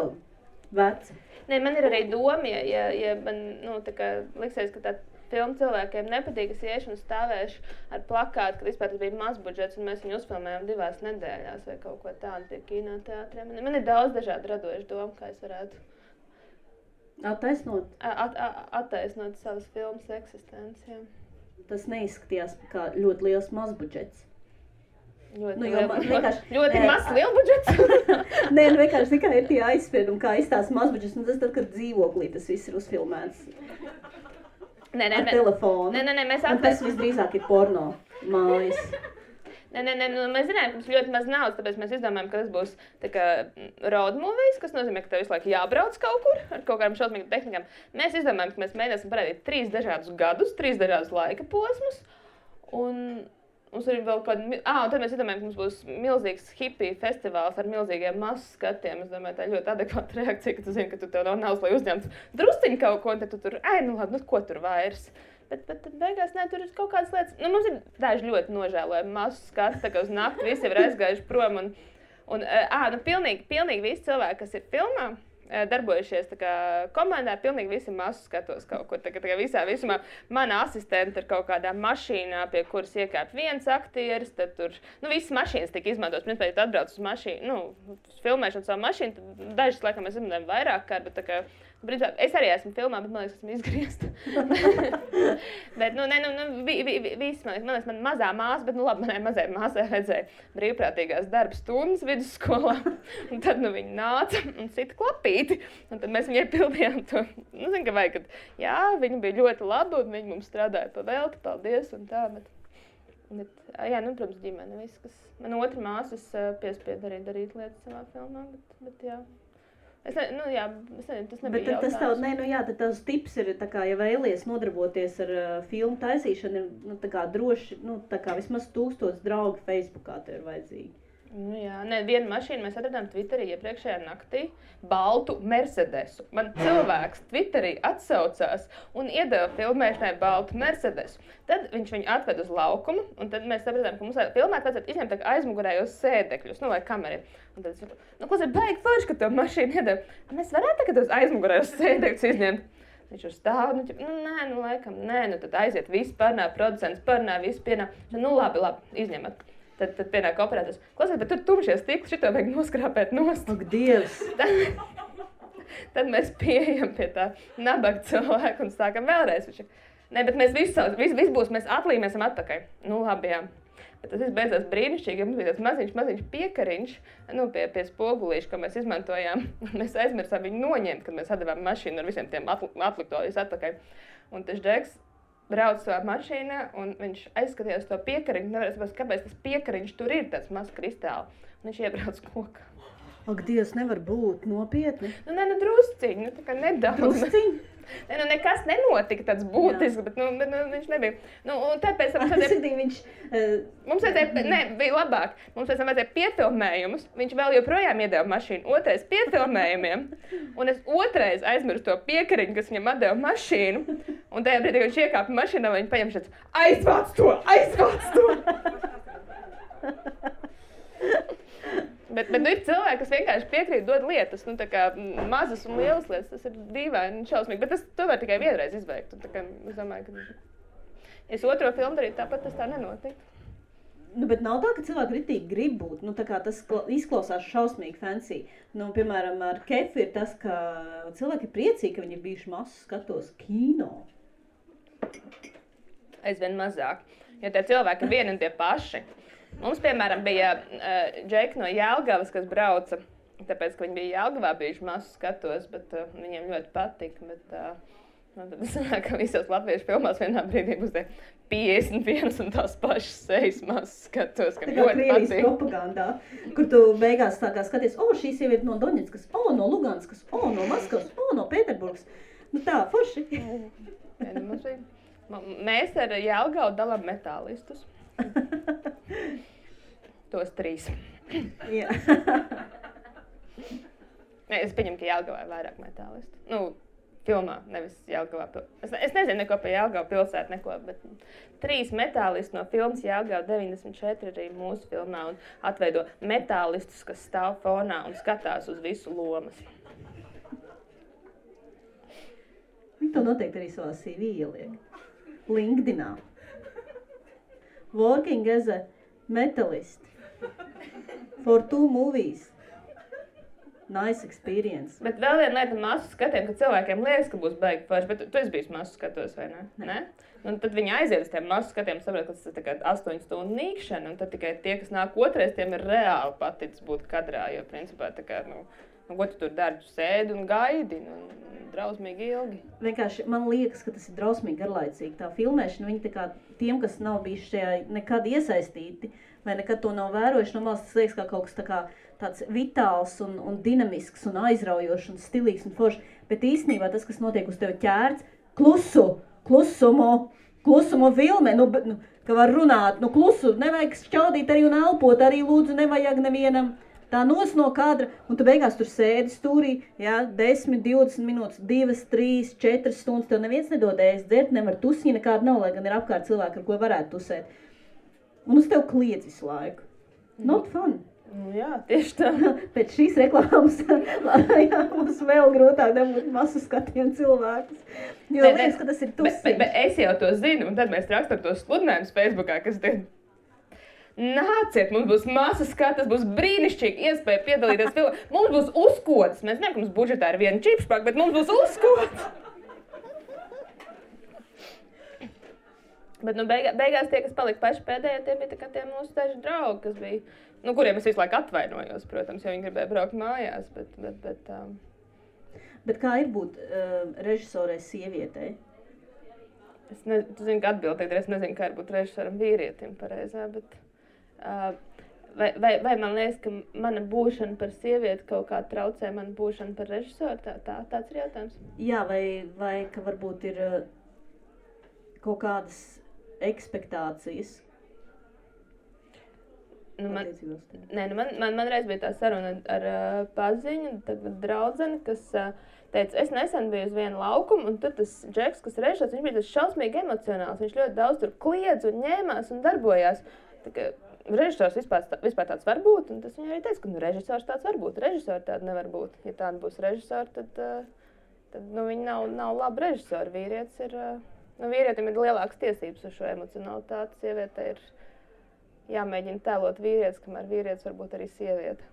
veci. Nē, man ir arī doma, ja man, liksies, ka tā filma cilvēkiem nepatīk, es iešu un stāvēšu ar plakātu, kad vispār tas bija mazbudžets, un mēs viņu uzfilmējām 2 nedēļās vai kaut ko tādu pie kinoteātriem. Man ir daudz dažādu radošu domu, kā es varētu attaisnot savas filmas eksistenci. Tas neizskatījās kā ļoti liels mazbudžets. Ļoti mazs lielbudžets? Nē, vienkārši tikai ir tie aizspriedumi, kā izstāsta mazbudžets, un tas tad, kad dzīvoklī tas viss ir uzfilmēts. Ar telefonu. Un tas visdrīzāk ir porno mājas. Mēs zinājām, ka mums ļoti maz naudas, tāpēc mēs izdomājam, ka tas būs tā kā road movies, kas nozīmē, ka tev visu laiku jābrauc kaut kur ar kaut kādām šausmīgām tehnikām. Mēs izdomājam, ka mēs mēģināsim parādīt 3 dažādus gadus, 3 dažādus laika posmus. Un mums ir vēl un tad mēs izdomājam, ka mums būs milzīgs hippiju festivāls ar milzīgiem masu skatiem. Es domāju, tā ir ļoti adekvāta reakcija, ka tu zini, ka tu tev nav naudas, lai uzņemtu drusciņu kaut ko, un tad tu tur, ko tur vairs. Bet beigās, tur ir kaut kādas lietas. Mums ir daži ļoti nožēlojami masu skati, tā kā uz nakti visi ir aizgājuši prom. Pilnīgi visi cilvēki, kas ir filmā, darbojušies tā kā komandā, pilnīgi visi masu skatos kaut kur. Tā kā visā visumā mana asistente ir kaut kādā mašīnā, pie kuras iekāp viens aktieris, tad tur, visas mašīnas tika izmantotas. Principā, ja tu atbrauc uz mašīnu, uz filmēšanu savu mašīnu, tad dažas, laikam, mēs izmantojam vairāk kārt, bet tā kā, principā, es arī esmu filmā, bet man liekas, esmu izgriezta. Bet, viss, man liekas, man mazā māsa, bet, labi, manai mazai māsai vajadzēja brīvprātīgās darba stundas vidusskolā, un tad, viņa nāca un sita klapīti, un tad mēs viņai pildījām to, zinu, ka vajag, kad, jā, viņa bija ļoti laba, un viņa mums strādāja pa velti, paldies, un tā, bet jā, protams, ģimene, viss, kas, man otra māsas piespied arī darīt lietas savā filmā, bet jā. Es nezinu, tas nebija jautājums. Bet tad tavs tips ir, tā kā, ja vēlies nodarboties ar filmu taisīšanu, ir, tā kā droši, tā kā vismaz 1000 draugi Facebookā tev ir vajadzīgi. Vienu mašīnu mēs atradām Twitterī iepriekšējā naktī, baltu Mercedesu. Man cilvēks Twitterī atsaucās un iedeva filmēšanai baltu Mercedesu. Tad viņš viņu atved uz laukumu, un tad mēs sapratām, ka mums filmēt vajadzētu izņemt aizmugurējos sēdekļus, lai kamera ir. Un tad es saku, kas ir baigi forši, ka tev mašīnu iedeva? Mēs varētu tagad tos aizmugurējos sēdekļus izņemt. Viņš tur stāv, laikam, tad aiziet visi parunā, producents parunā, visi pienā. Labi, izņemat. Tad pienāk operators. Klausies, bet tur tumšie stikli, šito vajag noskrāpēt nost. Ak, Dievs! Tad mēs pieejam pie tā nabaga cilvēku un sākam vēlreiz. Bet mēs visi būs, mēs atlīmēsim atpakaļ. Labi, jā. Bet tas viss beidzās brīnišķīgi, mums bija tāds maziņš piekariņš, pie spogulīša, ko mēs izmantojām. Mēs aizmirsām viņu noņemt, kad mēs atdevām mašīnu ar visiem tiem atliktojus atpakaļ. Un tas Džeks brauc savā mašīnā, un viņš aizskatījās to piekariņu, nevarēja saprast, kāpēc tas piekariņš tur ir, tāds mazs kristāli. Un viņš iebrauc kokā. Ak, Dievs, nevar būt nopietni. Drusciņi, tā kā nedaudz. Drusciņi? Nekas nenotika tāds būtisks, bet viņš nebija. Un tāpēc mums bija labāk. Mums pēc tam vajadzēja piefilmējumus. Viņš vēl joprojām iedeva mašīnu. Otrais piefilmējumiem. Un es otrais aizmirstu to piekariņu, kas viņam atdeva mašīnu. Un tajā brīdī, kad viņš iekāpa mašīnā, viņš paņem šāds aizvāc to! Bet ir cilvēki, kas vienkārši piekrīt dod lietas, tā kā mazas un lielas lietas, tas ir dīvaini un šausmīgi, bet to var tikai vienreiz izveikt. Tā kā es domāju, ka, ja es otro filmu darītu, tāpat tas tā nenotiek. Bet nav tā, ka cilvēki ritīgi grib būt, tā kā tas izklausās šausmīgi fancy. Piemēram, ar Kefu ir tas, ka cilvēki ir priecīgi, ka viņi ir bijuši masu skatos kino. Aizvien mazāk, jo tie cilvēki ir vieni un tie paši. Mums, piemēram, bija džeki no Jelgavas, kas brauca, tāpēc, ka viņi bija Jelgavā bijuši masu skatos, bet viņiem ļoti patika. Tad es domāju, ka visos latviešu filmās vienā brīdī būs 51 un tās pašas sejas masu skatos, ka ļoti patīk. Tā kā Krievijas propagandā, kur tu beigās tā kā skaties, šī sieviete no Doņetskas, no Luganskas, no Maskavas, no Pēterburgas. Tā, forši. Mēs ar Jelgavu dalām metālistus. Tos 3. Jā. Es pieņemu, ka Jelgavā ir vairāk metālistu. Filmā, nevis Jelgavā. Es nezinu neko par Jelgavu pilsētu, bet 3 metālisti no filmas Jelgava 94 arī mūsu filmā un atveido metālistus, kas stāv fonā un skatās uz visu lomas. To noteikti arī savā CV ieliek. LinkedInā. Working as a metalist for 2 movies. Nice experience. Bet vēl viena lieta masu skatiem, ka cilvēkiem liekas, ka būs baigi forši, bet tu esi bijis masu skatos, vai ne? Un tad viņi aiziet uz tiem masu skatiem, saprot, ka tas ir tikai 8 stundu nīkšana, un tad tikai tie, kas nāk otrais, tiem ir reāli paticis būt kadrā, jo principā tā kā, ko tu tur dari, tu sēdi un gaidi, drausmīgi ilgi. Vienkārši man liekas, ka tas ir drausmīgi garlaicīgi. Tā filmēšana, viņi tā kā tiem, kas nav bijuši šajā nekad iesaistīti, vai nekad to nav vērojuši, no malas tas liekas kā kaut kas tā kā tāds vitāls un dinamisks un aizraujošs un stilīgs un foršs. Bet īstenībā tas, kas notiek uz tevi ķērts, klusumo filmē, ka var runāt, klusu, nevajag šķaudīt arī un elpot, arī lūdzu nevajag nevienam. Tā nos no kadra, un tu beigās tur sēdi stūrī, 10, 20 minūtes, 2, 3, 4 stundas, tev neviens nedod ēst, dzert, nevar tusiņa nekāda nav, lai gan ir apkārt cilvēki, ar ko varētu tusēt. Un uz tev kliedz visu laiku. Not fun. Jā, tieši tā. Pēc šīs reklāmas jā, mums vēl grūtāk dabūt masu skatienu cilvēkus. Jo liekas, ka tas ir tusiņš. Bet es jau to zinu, un tad mēs rakstam tos sludinājumus Facebookā, kas te nāciet, mums būs masas skatas, būs brīnišķīgi iespēja piedalīties filmā. Mums būs uzkodas. Mēs zinām, ka mums budžetā ir viena čipšpaka, bet mums būs uzkodas. Bet beigās tie, kas palika paši pēdējie, tie bija tie mūsu daži draugi, kas bija, kuriem es visu laiku atvainojos, protams, jo viņi gribēja braukt mājās. Bet kā ir būt režisorei sievietei? Tu zini, ka atbildīgi, es nezinu, kā ir būt režisoram vīrietim pareizā, bet vai man liekas, ka mana būšana par sievieti kaut kā traucē mana būšana par režisoru? Tāds ir jautājums. Jā, vai ka varbūt ir kaut kādas ekspektācijas? Man reiz bija tā saruna ar paziņu, tagad draudzeni, kas teica, es nesen biju uz vienu laukumu, un tur tas Džeks, kas režisors, viņš bija tas šausmīgi emocionāls, viņš ļoti daudz tur kliedz un ņēmās un darbojās. Režisors vispār tāds var būt, un tas viņai arī teica, ka režisors tāds var būt, režisori tādi nevar būt. Ja tādi būs režisori, tad viņi nav labi režisori. Vīrietis ir, vīrietim ir lielākas tiesības uz šo emocionalitāti, sieviete ir jāmēģina tēlot vīrietis, kamēr vīrietis var būt arī sieviete.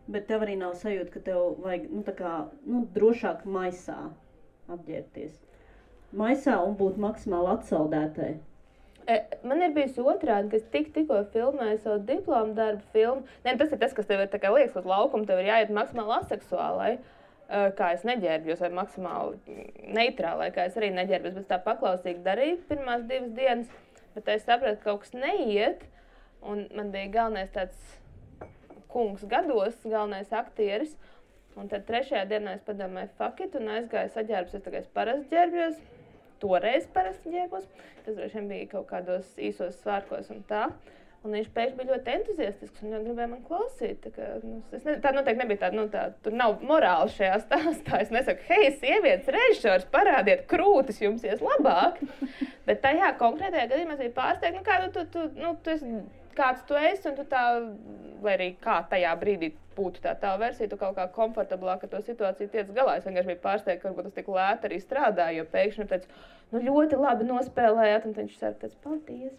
Bet tev arī nav sajūta, ka tev vajag, drošāk maisā apģērbties. Maisā un būt maksimāli atsaldētai. Man ir bijusi otrādi, ka es tikko filmēju savu diplomu darbu filmu. Tas ir tas, kas tev ir liekas uz laukumu, tev ir jāiet maksimāli aseksuālai, kā es neģērbjos, vai maksimāli neitrālai, kā es arī neģērbjos, bet tā paklausīgi darīju pirmās 2 dienas, bet es sapratu, ka kaut kas neiet, un man bija galvenais tāds kungs gados, galvenais aktieris, un tad 3. dienā es padomāju fuck it, un aizgāju saģērbos, es parasti ģērbjos. Toreiz parasti ģērbos, tas droši bija kaut kādos īsos svārkos un tā. Un viņš pēkšņi bija ļoti entuziastisks un gribēja man klausīt. Tā noteikti nebija tāda, tur nav morāli šajā stāstā. Es nesaku, hei, sievietes režisors, parādiet krūtis, jums ies labāk. Bet tajā konkrētajā gadījumā es biju pārsteigta, tu esi, kāds tu esi, un tu tā, lai arī kā tajā brīdī būtu tā versija, tu kaut kā komfortablāk ar to situāciju tiec galā. Es vienkārši biju pārsteigta, ka varbūt tas tik lēti arī strādāja, jo pēkšņi teica, ļoti labi nospēlējāt, un viņš teica, paldies.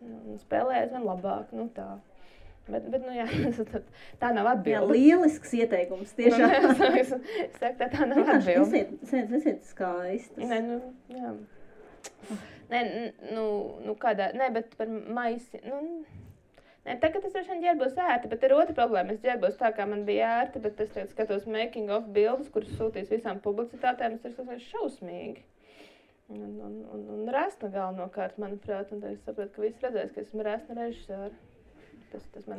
Un spēlējās man labāk, tā. Bet jā, tā nav atbilde. Jā, lielisks ieteikums, tiešām. Es saku, tā nav atbilde. Nesiet skaistas. Jā. Kādā, bet par maisi, tagad es droši vien ģērbos ērti, bet ir otra problēma. Es ģērbos tā, kā man bija ērti, bet es tagad skatos making of bildes, kuras sūtīs visām publicitātēm, tas ir šausmīgi. Un resna galvenokārt, manuprāt, un tad es sapratu, ka visi redzēs, ka esmu resna režisora.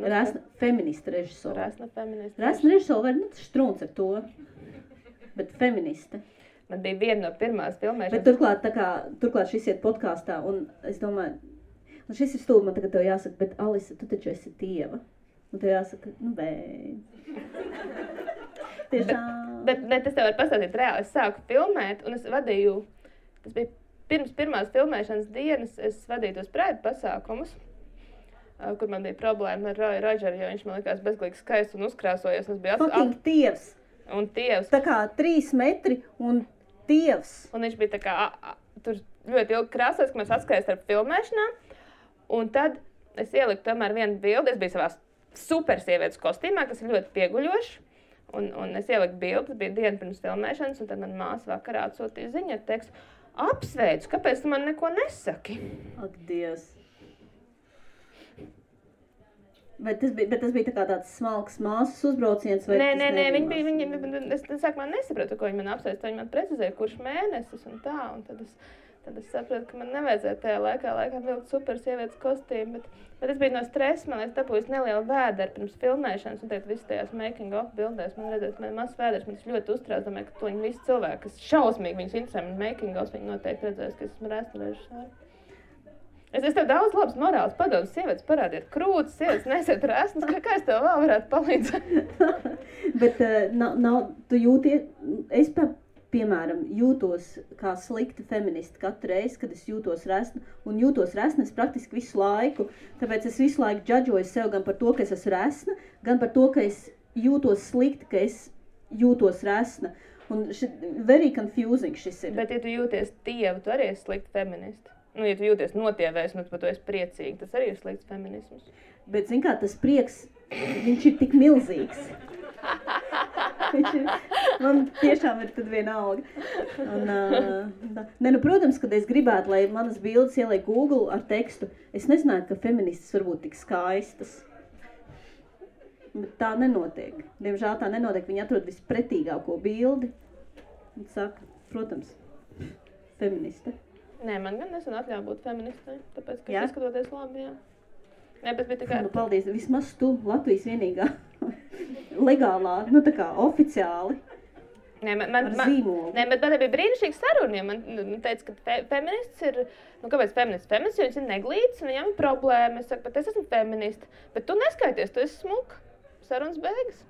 Resna feminista režisora. Resna feminista. Resna režisora var strūns ar to, bet feministe. Man bija viena no pirmās filmēšanas. Bet turklāt šis iet podkāstā, un es domāju, un šis ir stulbi, man tagad tev jāsaka, bet Alisa, tu taču esi tieva. Un tev jāsaka, tiešām. Bet es tev varu pastāstīt reāli, es sāku filmēt, un es vadīju. Tas bija pirms pirmās filmēšanas dienas, es vadīju tos prēdu pasākumus, kur man bija problēma ar Roju Rodžeru, jo viņš man likās bezgalīgi skaists un uzkrāsojies. Fucking tievs! Un tievs. Tā kā 3 metri un tievs. Un viņš bija tā kā, tur ļoti ilgi krāsojas, ka mēs atskaies ar filmēšanām. Un tad es ieliku tomēr vienu bildi, es biju savā super sievietes kostīmā, kas ir ļoti pieguļošs. Un es ieliku bildi, bija diena pirms filmēšanas, un tad man māsa vakarā atsūtīja ziņu ar tekstu. Apsveicu, kāpēc tu man neko nesaki? Ak, Dievs. Bet tas bija tā kā tāds smalks māsas uzbrauciens? Vai nē, es sākumā nesapratu, ko viņi man apsveic. Viņi man precizēja, kurš mēnesis un tā. Un tad es sapratu, ka man nevajadzēja tajā laikā vilkt super sievietes kostīmu. Bet es biju no stresa, man liekas, dabūjis nelielu vēderu pirms filmēšanas. Un tagad visi tajās making of bildēs man redzēs, man mazs vēders. Man tas ļoti uztrauc, domāju, ka to visi cilvēki, kas šausmīgi viņus interesē man making of, viņi noteikti redzēs, ka esmu resna režisora. Es tev daudz labs morāls padomus, sievietes parādiet krūtis, sievietes nesiet resnas, kā es tev vēl varētu palīdzēt? Bet tu jūties, es piemēram, jūtos kā slikta feministi katru reizi, kad es jūtos resna, un jūtos resna es praktiski visu laiku, tāpēc es visu laiku džadžoju sev gan par to, ka es esmu resna, gan par to, ka es jūtos slikti, ka es jūtos resna. Un very confusing šis ir. Bet, ja tu jūties tievu, tu arī esi slikta feministi. Nu, ja tu jūties notievēs, un tu par to esi priecīgi, tas arī ir slikts feminisms. Bet, zin kā, tas prieks, viņš ir tik milzīgs. Man tiešām ir tad vienalga. Un, protams, kad es gribētu, lai manas bildes ieliek Google ar tekstu, es nezināju, ka feministas var būt tik skaistas. Bet tā nenotiek. Diemžēl tā nenotiek. Viņi atrod vispretīgāko bildi un saka, protams, feministe. Nē, man gan nesen atļauj būt feministai, tāpēc, ka izskatoties labi, jā. Nē, bet tikai... Nu, paldies, vismaz tu Latvijas vienīgā legālā, nu tā kā oficiāli. Nē, ar zīmolu. Nē, bet man bija brīnišķīgs saruna, ja man teica, ka feminists ir, nu kāpēc feminists? Feminists, jo viņš ir neglīts un viņam ir problēma. Es saku, bet es esmu feminista, bet tu neskaities, tu esi smuka. Sarunas beigas.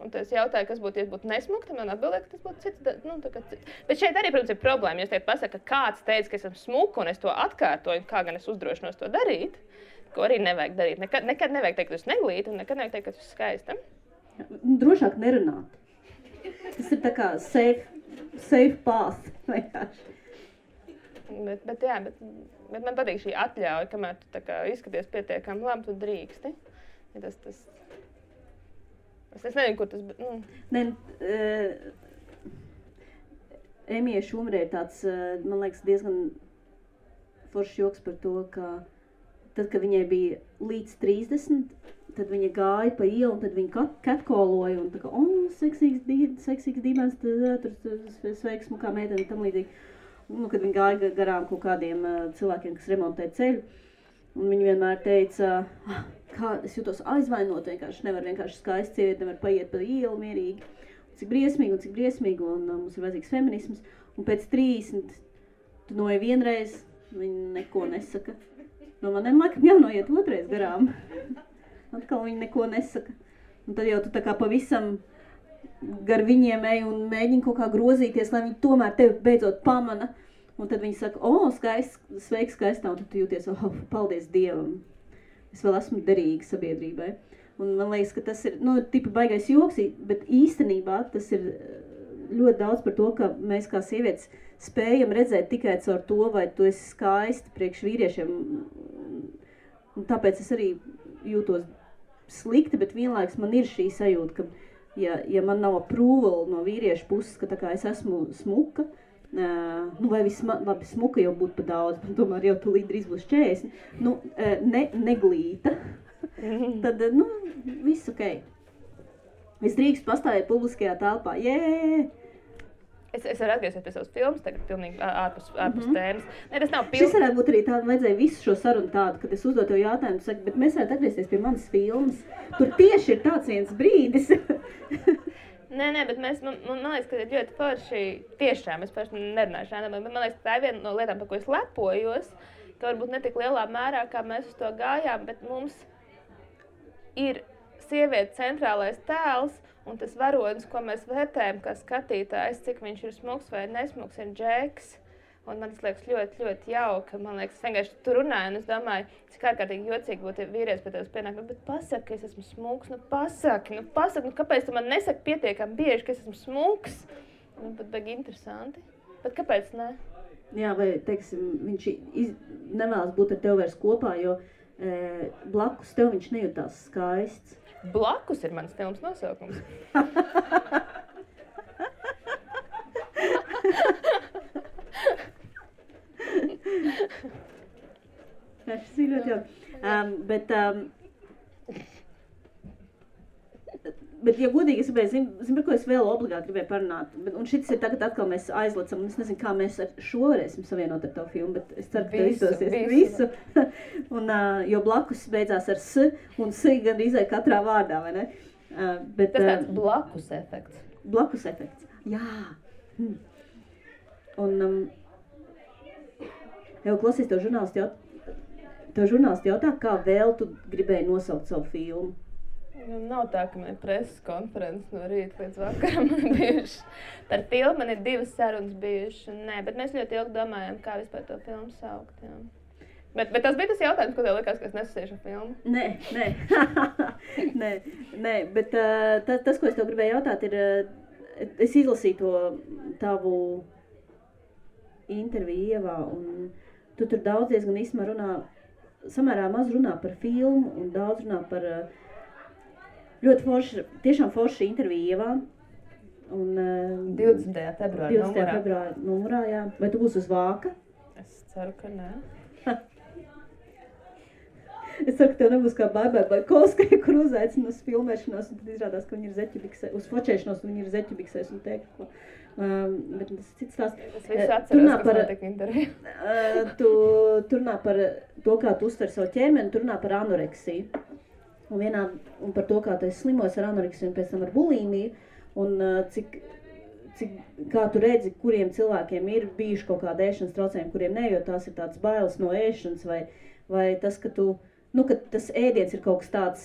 Un tad es jautāju, kas būtu, ja būtu nesmuka, tad man atbildēja, ka tas būtu cits, nu tā kā cits. Bet šeit arī, protams, ir problēma, ja es teikt pasaka, ka kāds teica, ka esmu smuka un es to atkārtoju, kā gan es uzdrošinos to darīt, ko arī nevajag darīt. Nekad nevajag teikt, ka tu esi neglīta un nekad nevajag teikt, ka tu esi skaista. Drošāk nerunāt. Tas ir tā kā safe path, vienkārši. Bet man patīk šī atļauja, kamēr tu tā kā izskaties pietiekami labi, tu drīksti. Ja tas... Es nezinu, kur tas... Nu. Emija Šumrē ir tāds, man liekas, diezgan foršs joks par to, ka tad, kad viņai bija līdz 30, tad viņa gāja pa ielu, un tad viņa catcalloja, un tā kā, seksīgs dīvains, tur sveiks, kā meiteni, tam līdzīgi. Nu, kad viņa gāja garām kaut kādiem cilvēkiem, kas remontē ceļu, un viņa vienmēr teica, kā es jūtos aizvainot, nevar vienkārši skaisti sievieti, nevar paiet pa ielu mierīgi. Cik briesmīgi, un mums ir vajadzīgs feminisms. Un pēc 30, tu noiet vienreiz, viņi neko nesaka. No maniem laikam jānoiet otrais garām. Atkal viņi neko nesaka. Un tad jau tu tā kā pavisam gar viņiem ej un mēģini kaut kā grozīties, lai viņi tomēr tevi beidzot pamana. Un tad viņi saka, sveiks, skaistā, un tad tu jūties, paldies Dievam. Es vēl esmu derīga sabiedrībai. Un man liekas, ka tas ir, tipa baigais joks, bet īstenībā tas ir ļoti daudz par to, ka mēs kā sievietes spējam redzēt tikai caur to, vai tu esi skaisti priekš vīriešiem. Un tāpēc es arī jūtos slikti, bet vienlaiks man ir šī sajūta, ka ja man nav approval no vīriešu puses, ka tā kā es esmu smuka, vai labi, smuka jau būtu pa daudz, bet tomēr jau tu drīz būs 40, neglīta, tad, viss ok. Es drīkst pastāvēt publiskajā telpā, Es varu atgriezties pie savas filmas, tagad pilnīgi ārpus tēmas. Ne, tas nav Šis varētu būt arī tāda, vajadzēja visu šo sarunu tādu, kad es uzdot tev jautājumu, saka, bet mēs varētu atgriezties pie manas filmas. Tur tieši ir tāds viens brīdis. Nē, bet man liekas, ka ir ļoti forši tiešām, es paši nerunāju šādā, bet man liekas, ka tā ir viena no lietām, par ko es lepojos, ka varbūt ne tik lielā mērā, kā mēs uz to gājām, bet mums ir sieviete centrālais tēls, un tas varonis, ko mēs vērtējam kā skatītājs, cik viņš ir smuks vai nesmuks, ir Džeks. Un man tas liekas ļoti, ļoti jauka. Man liekas, es vienkārši tur runāju, un es domāju, cik ārkārtīgi jocīgi būtu vīrietis pie tevis pienāk. Bet pasaki, ka es esmu smuks, pasaki, kāpēc tu man nesaki pietiekami bieži, ka es esmu smuks? Pat baigi interesanti. Bet kāpēc ne? Jā, vai, teiksim, viņš nevēlas būt ar tev vairs kopā, jo blakus tev viņš nejūtās skaists. Blakus ir mans filmas nosaukums. Tas ir ļoti jau. Bet, ja godīgi, es gribēju, zinu, par ko es vēl obligāti gribēju parunāt. Un šis ir tagad atkal mēs aizlecam, un es nezinu, kā mēs ar šo varēsim savienot ar tavu filmu, bet es ceru, ka tev izdosies visu. Un, jo blakus beidzās ar S, un S gandrīz katrā vārdā, vai ne? Bet, tas tāds blakus efekts. Blakus efekts, jā. Un, jau klausies, tev žurnālisti jautā, kā vēl tu gribēji nosaukt savu filmu? Nu, nav tā, ka man ir preses konferences no rīta līdz vakaram bijuši. Par filmu man ir 2 sarunas bijušas. Nē, bet mēs ļoti ilgi domājam, kā vispār to filmu saukt. Jā. Bet tas bija tas jautājums, ko tev likās, ka es nesasiešu filmu? Nē, bet tas, ko es tev gribēju jautāt, ir, es izlasīju to tavu interviju Ievā, un tu tur daudz diezgan īsumā runā, samērā maz runā par filmu, un daudz runā par ļoti forši, tiešām forši interviju Ievā. Un, 20. februāra numurā, jā. Vai tu būsi uz vāka? Es ceru, ka nē. Es ceru, ka tev nebūs kā Baikovskai, kur uzaicina uz filmēšanos, un tad izrādās, ka viņi ir zeķubiksēs, uz fočēšanos, un viņi ir zeķubiksēs un teikt, ko. Bet tas cits tās. Es visu atceros, kas notika interviju. Tu runā par to, kā tu uztver savu ķermeni, tu runā par anoreksiju. Un par to, kā tu esi slimojis ar anoreksiju un pēc tam ar bulimiju. Un kā tu redzi, kuriem cilvēkiem ir bijuši kaut kāda ēšanas traucējumi, kuriem ne, jo tās ir tāds bailes no ēšanas, vai tas, ka ka tas ēdiens ir kaut kas tāds,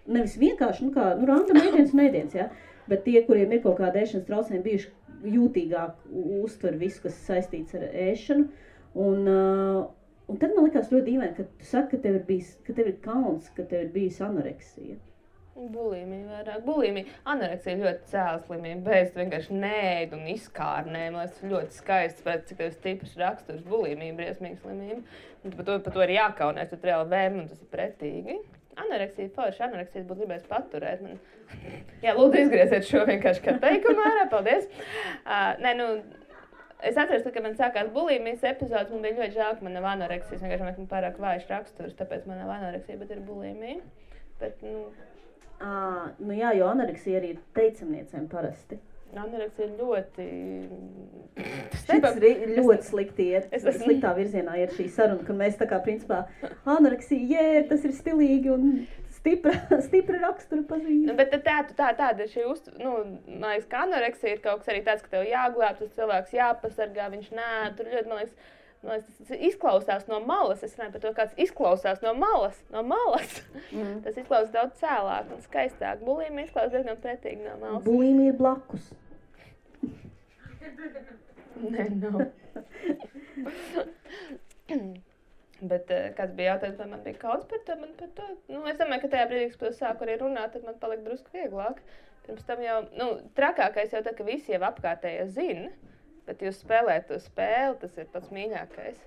nevis vienkārši, random ēdiens un ēdiens, ja? Bet tie, kuriem ir kaut kāda ēšanas traucējumi, bijuši jūtīgāk uztver visu, kas saistīts ar ēšanu. Un tad man likās ļoti dīvaini, ka tu saki, ka tev ir kauns, ka tev ir bijusi anoreksija. Bulimija vairāk. Bulimija. Anoreksija ir ļoti cēla slimība. Beidz vienkārši neēd un izkārnē. Man liekas, ļoti skaists, pēc cik tev stiprs raksturs. Bulimija, briesmīga slimība. Par to ir jākaunēs, tu reāli vēm, un tas ir pretīgi. Anoreksija forši. Anoreksijas būtu gribējis paturēt. Jā, lūdzu, izgrieziet šo vienkārši kā teikumu ārā. Paldies. Es atceros, ka man sākās bulimijas epizodes, man bija ļoti žēl, ka man nav anoreksijas. Vienkārši man pārāk vājš raksturs, tāpēc man nav anoreksija, bet ir bulimija. Bet, jā, jo anoreksija arī ir teicamniecēm parasti. Anoreksija ir ļoti... Šis ļoti slikti iet, sliktā virzienā ir šī saruna, ka mēs tā kā principā anoreksija, tas ir stilīgi un stipra rakstura pazīme. Bet tāda ir šī man liekas, ka anoreksija ir kaut kas arī tāds, ka tev jāglāb, tas cilvēks jāpasargā, viņš tur ļoti, man liekas, tas izklausās no malas. Es runāju par to, kāds izklausās no malas. Tas izklausās daudz cēlāk un skaistāk. Bulimija izklausās diezgan pretīgi no malas. Bulimija ir blakus. Nē, nav. Bet kāds bija jautājums, vai man bija kauns par to? Es domāju, ka tajā brīdī, kad es sāku arī runāt, tad man palika drusku vieglāk. Pirms tam jau, trakākais jau tā, ka visi jau apkārtējie zina. Bet jūs spēlējat to spēli, tas ir pats mīļākais.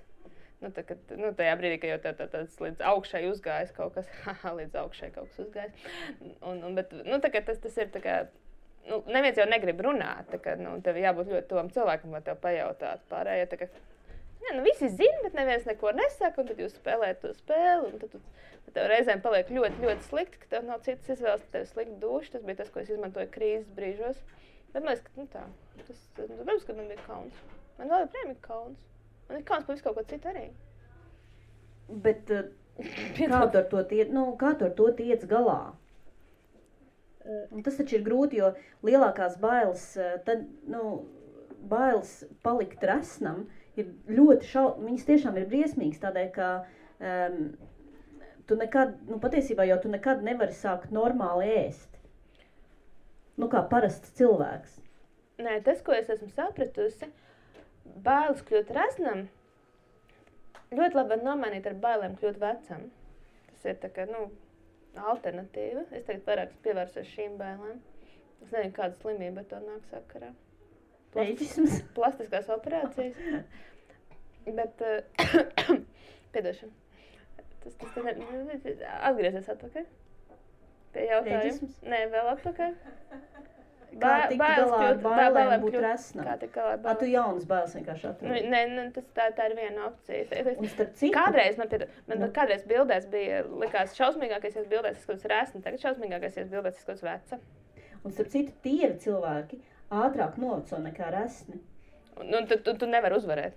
Tajā brīdī, kad jau tāds līdz augšai uzgājis kaut kas, līdz augšai kaut kas uzgājis. Bet tas ir tā kā, neviens jau negrib runāt, tā kā, tev jābūt ļoti tuvam cilvēkam, lai tev pajautātu pārējie. Tā kā, visi zina, bet neviens neko nesaka, un tad jūs spēlējat to spēli, un tad tev reizēm paliek ļoti, ļoti slikti, ka tev nav citas izvēles, ka tev ir slikti duši. Tas bija tas, ko es izmantoju krīzes brīžos. Bet man liekas, ka protams, ka man bija kauns. Man vēl joprojām ir kauns. Man ir kauns par visu kaut ko citu arī. Bet kā tu ar to tiec galā? Un tas taču ir grūti, jo lielākās bailes, bailes palikt resnam ir ļoti viņas tiešām ir briesmīgas, tādēļ, ka tu nekad, patiesībā jau tu nekad nevari sākt normāli ēst. Kā parasts cilvēks. Nē, tas, ko es esmu sapratusi, bailes kļūt resnam, ļoti labi var nomainīt ar bailēm kļūt vecam. Tas ir tā kā, alternatīva. Es tagad vairāk pievērsos šīm bailēm. Es nezinu, kāda slimība ar to nāk sakarā. Plastiskās operācijas. Bet, piedošana. Atgriezies atpakaļ. Pie jautājums. Nē, vēl atpakaļ. Kā tikt galā ar bailēm būt resnam? Tu jaunas bailes vienkārši atrodi? Nē, tā ir viena opcija. Un starp citu? Kādreiz bildēs bija, likās šausmīgākais bildēs izskatās resni, tagad šausmīgākais bildēs izskatās veca. Un starp citu, tievi cilvēki ātrāk noveco nekā resni. Tu nevari uzvarēt.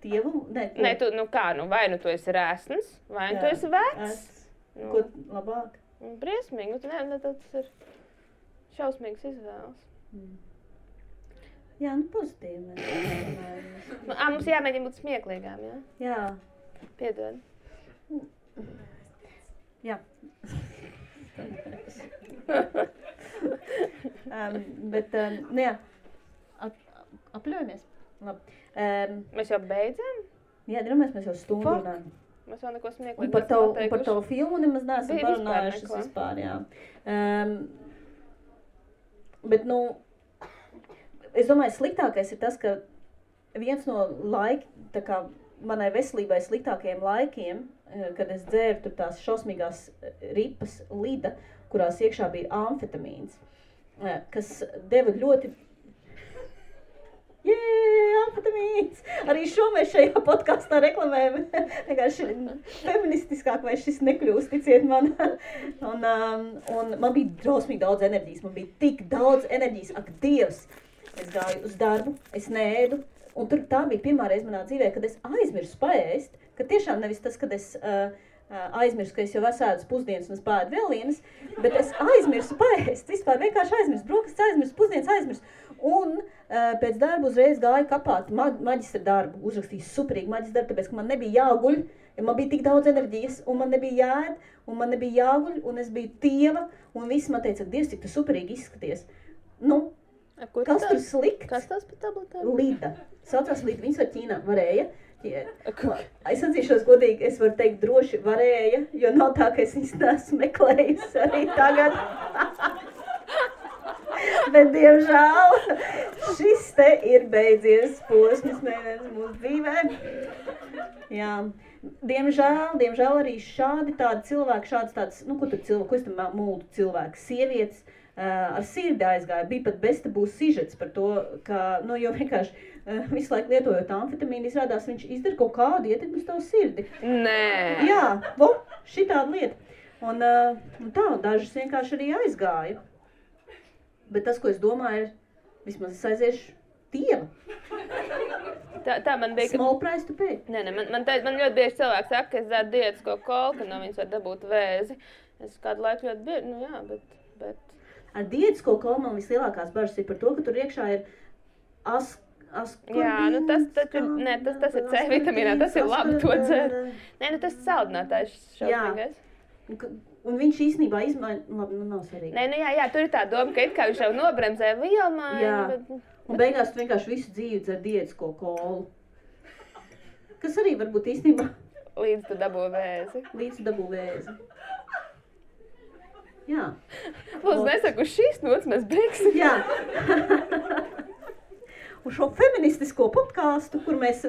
Tievu? Nē, vai tu esi resns, vai tu esi vecs. Ko labāk? Briesmīgi, tas ir šausmīgas izvēles. Jā, pozitīvi. Mums jāmēģina būt smieklīgām, jā? Jā. Piedod. Jā. Bet, nu jā, apļaujamies. Labi. Mēs jau beidzam? Jā, drāmies, mēs jau stundu runājam. Mēs vēl neko Un smieklīgi par tavu filmu nemaz neesam Bija parunājušas neko. vispār, jā. Bet, nu, es domāju, sliktākais ir tas, ka viens no tā kā manai veselībai sliktākajiem laikiem, kad es dzēru tur tās šausmīgās ripas Lida, kurās iekšā bija amfetamīns, kas deva ļoti... Amfetamīns! Arī šo mēs šajā podkastā reklamējam. Vienkārši feministiskāk vai šis nekļūst, ticiet man. Un man bija drausmīgi daudz enerģijas. Man bija tik daudz enerģijas. Ak, Dievs! Es gāju uz darbu, es neēdu. Un tur tā bija pirmā reize manā dzīvē, kad es aizmirsu paēst. Ka tiešām nevis tas, kad es aizmirsu, ka es jau esēdu pusdienas un es pāēdu vēl vienas, bet es aizmirsu paēst. Vispār vienkārši aizmirsu. Brokastis aizmirsu, pusdienas aizmirsu. Un pēc darba uzreiz gāju kapāt maģistra darbu, uzrakstīju superīgi maģistra darbu, tāpēc, ka man nebija jāguļ, ja man bija tik daudz enerģijas, un man nebija jāēd, un man nebija jāguļ, un es biju tieva, un visi man teica, Dievs, cik tu superīgi izskaties. Nu, kas tur slikts? Kas tās par tabletēm? Lida. Saucās Lida, viņas var Ķīnā, varēja. Es atzīšos godīgi, es varu teikt droši varēja, jo nav tā, ka es viņas neesmu meklējusi arī tagad. Bet, diemžēl, šis te ir beidzies posms mēnesis mūsu dzīvē. Jā, diemžēl arī šādi tādi cilvēki, šādas tādas, nu, ko tur cilvēki, ko es tam mūldu cilvēki, sievietes ar sirdi aizgāja. Bija pat bestabū sižets par to, ka, nu, jo vienkārši visu laiku lietojot amfetamīnu, izrādās viņš izdara kaut kādu ietekmi uz tavu sirdi. Nē. Jā, šitāda lieta. Un tā, dažas vienkārši arī aizgāja. Bet tas, ko es domāju, ir, vismaz es aiziešu tieva. Tā man bija... Small price to pay. Nē, man ļoti bieži cilvēki saka, ka es dzeru diētisko kolu, ka no viņas var dabūt vēzi. Es kādu laiku ļoti bieži, nu jā, bet... Ar diētisko kolu man vislielākās bažas ir par to, ka tur iekšā ir askorbīns. Jā, nu tas ir C vitamīnā, tas ir labi to dzert. Nē, nu tas saldinātājs šausmīgais. Un viņš īstenībā izmaina, labi, nu nav svarīgi. Nē, nu jā, tur ir tā doma, ka it kā viņš jau nobremzē vielmaiņu, jā. Bet... Un beigās tu vienkārši visu dzīvi dzer diētisko kolu. Kas arī varbūt īstenībā... Līdz tu dabū vēzi. Jā. Lūdzu, nesaku, uz šīs nots mēs beigsim. Jā. Uz šo feministisko podcastu, kur mēs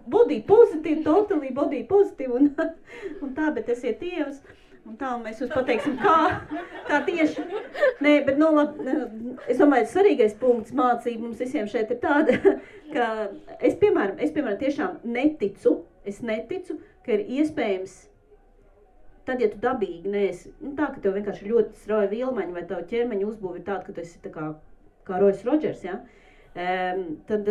body positive, totally body positive un tā, bet esiet tievas. Un tā, un mēs jums pateiksim, kā tieši. Nē, bet, nu, labi, es domāju, svarīgais punkts mācība mums visiem šeit ir tāda, ka es, piemēram, tiešām neticu, ka ir iespējams, tad, ja tu dabīgi neesi, nu, tā, ka tev vienkārši ļoti strauja vilmaņa vai tavu ķermeņa uzbūve ir tāda, ka tu esi tā kā Royce Rodgers, ja? Tad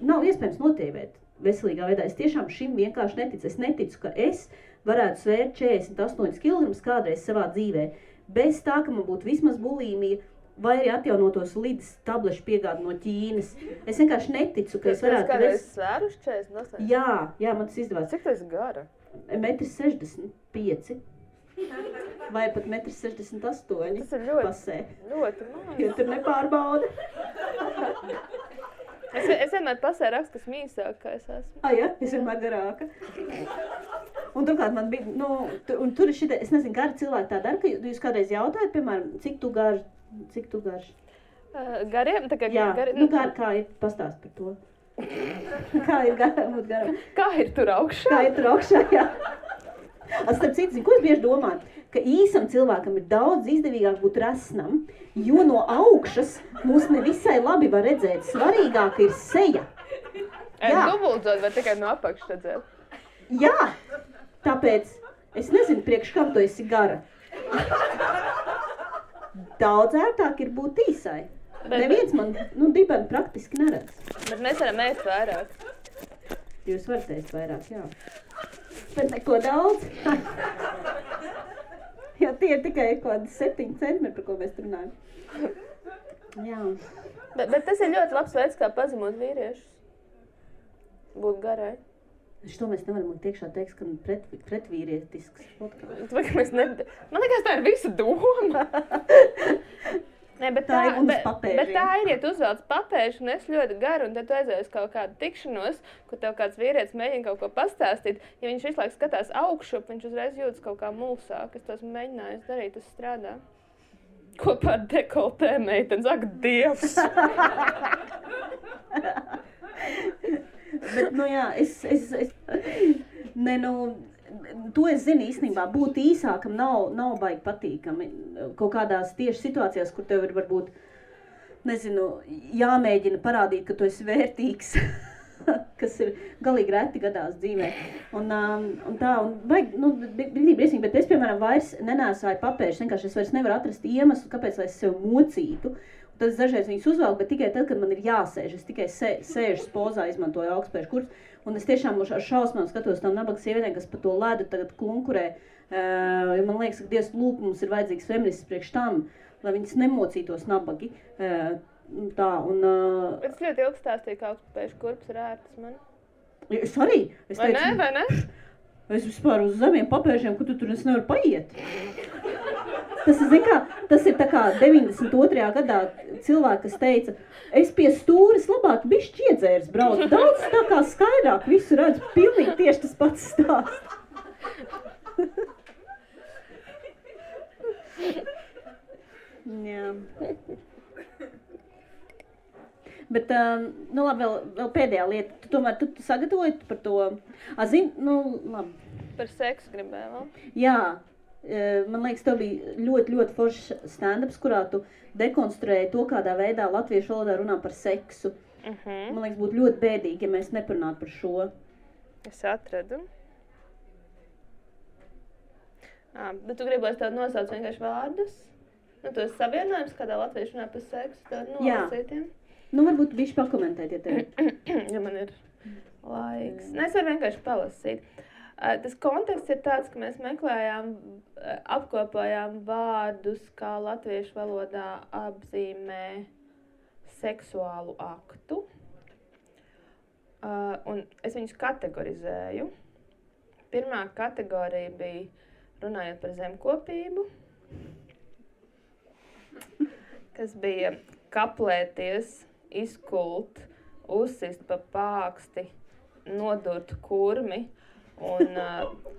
nav iespējams notievēt veselīgā veidā. Es tiešām šim vienkārši neticu. Es neticu, ka es varētu svērt 48 kg kādreiz savā dzīvē, bez tā, ka man būtu vismaz bulīmija vai arī atjaunotos Lidas tablešu piegādi no Ķīnas. Es vienkārši neticu, ka es varētu... Kādreiz svēruši 48? Jā, man tas izdevās. Cik tu esi gara? 1,65 m. Vai pat 1,68 m. Tas ir ļoti maz. Jo tur nepārbauda. Es vienmēr pasē rakstu, kas mīsāk, kā es esmu. Jā, es vienmēr garāka. Un turklāt man bija, nu, un tur ir šitie, es nezinu, gari cilvēki tā dara, ka jūs kādreiz jautājat, piemēram, cik tu garš? Gariem? Tā kā jā, gari... Nu, kā ir, pastāst par to. Kā ir būt garam? Kā ir tur augšā? Kā ir tur augšā, jā. Starp citu, ko es bieži domāju? Ka īsam cilvēkam ir daudz izdevīgāk būt resnam, jo no augšas mūs nevisai labi var redzēt. Svarīgāk ir seja. Dubultzot vai tikai no apakšas redzēt? Jā, tāpēc es nezinu, priekš kam tu esi gara. Daudz ērtāk ir būt īsai. Neviens man, dibeni praktiski neredz. Bet mēs varam ēst vairāk. Jūs varat ēst vairāk, jā. Bet neko daudz. Jā, tie ir tikai kādi 7 centimetri, par ko mēs runājam. Jā. Bet tas ir ļoti labs veids, kā pazemot vīriešus. Būt garai. Šo mēs nevaram likt iekšā tekst, ka pretvīrietisks podkāsts. Man liekas, tā ir visa doma. Nē, bet tā ir, ja tu uzvelc papēžu un es ļoti garu, un tad tu aizēji uz kaut kādu tikšanos, kur tev kāds vīrietis mēģina kaut ko pastāstīt. Ja viņš visu laiku skatās augšup, viņš uzreiz jūtas kaut kā mulsāk. Es tos mēģināju darīt, tas strādā. Kopā ar dekoltē meitenes, ak, Dievs! Bet, jā, to es zinu īstenībā, būt īsākam nav baigi patīkami. Kaut kādās tieši situācijās, kur tev ir varbūt, jāmēģina parādīt, ka tu esi vērtīgs, kas ir galīgi reti gadās dzīvē. Bet es, piemēram, vairs nenēsāju papēžus, vienkārši es vairs nevaru atrast iemeslu, kāpēc lai es sev mocītu. Tad es dažreiz viņus uzvelku, bet tikai tad, kad man ir jāsēž. Es tikai sēžas pozā, izmantoju augstspēšu kursus. Un es tiešām ar šausmām skatos tam nabaga sievietēm, kas pa to ledu tagad klunkurē. Man liekas, ka Dievs lūk, mums ir vajadzīgs feminists priekš tam, lai viņas nemocītos nabagi. Es ļoti ilgi stāstīju, ka augstspēšu kurps ir ērtas man. Es arī. Vai ne? Es vispār uz zemiem papēžiem, kur tu tur es nevaru paiet. Tas ir tā kā 92. gadā cilvēki, kas teica, es pie stūres labāk bišķi iedzērs braucu. Daudz tā kā skaidrāk visu redzu, pilnīgi tieši tas pats stāsts. Jā. Bet, labi, vēl pēdējā lieta. Tu tomēr tu sagatavoji par to? Labi. Par seksu gribēju vēl? Jā. Man liekas, tev bija ļoti, ļoti foršs stand-ups, kurā tu dekonstruēji to, kādā veidā latviešu valodā runā par seksu. Man liekas, būtu ļoti bēdīgi, ja mēs neparunātu par šo. Es atradu. Bet tu gribēsi tādu nosaukt vienkārši vārdus? Tos savienojums, kādā latviešu runā par seksu, tādu nolasītiem? Varbūt bišķi pakomentēt, ja tev. Ja man ir laiks. Es varu vienkārši palasīt. Tas konteksts ir tāds, ka mēs meklējām, apkopojām vārdus, kā latviešu valodā apzīmē seksuālu aktu. Un es viņus kategorizēju. Pirmā kategorija bija runājot par zemkopību, kas bija kaplēties, izkult, uzsist pa pāksti, nodurt kurmi. Un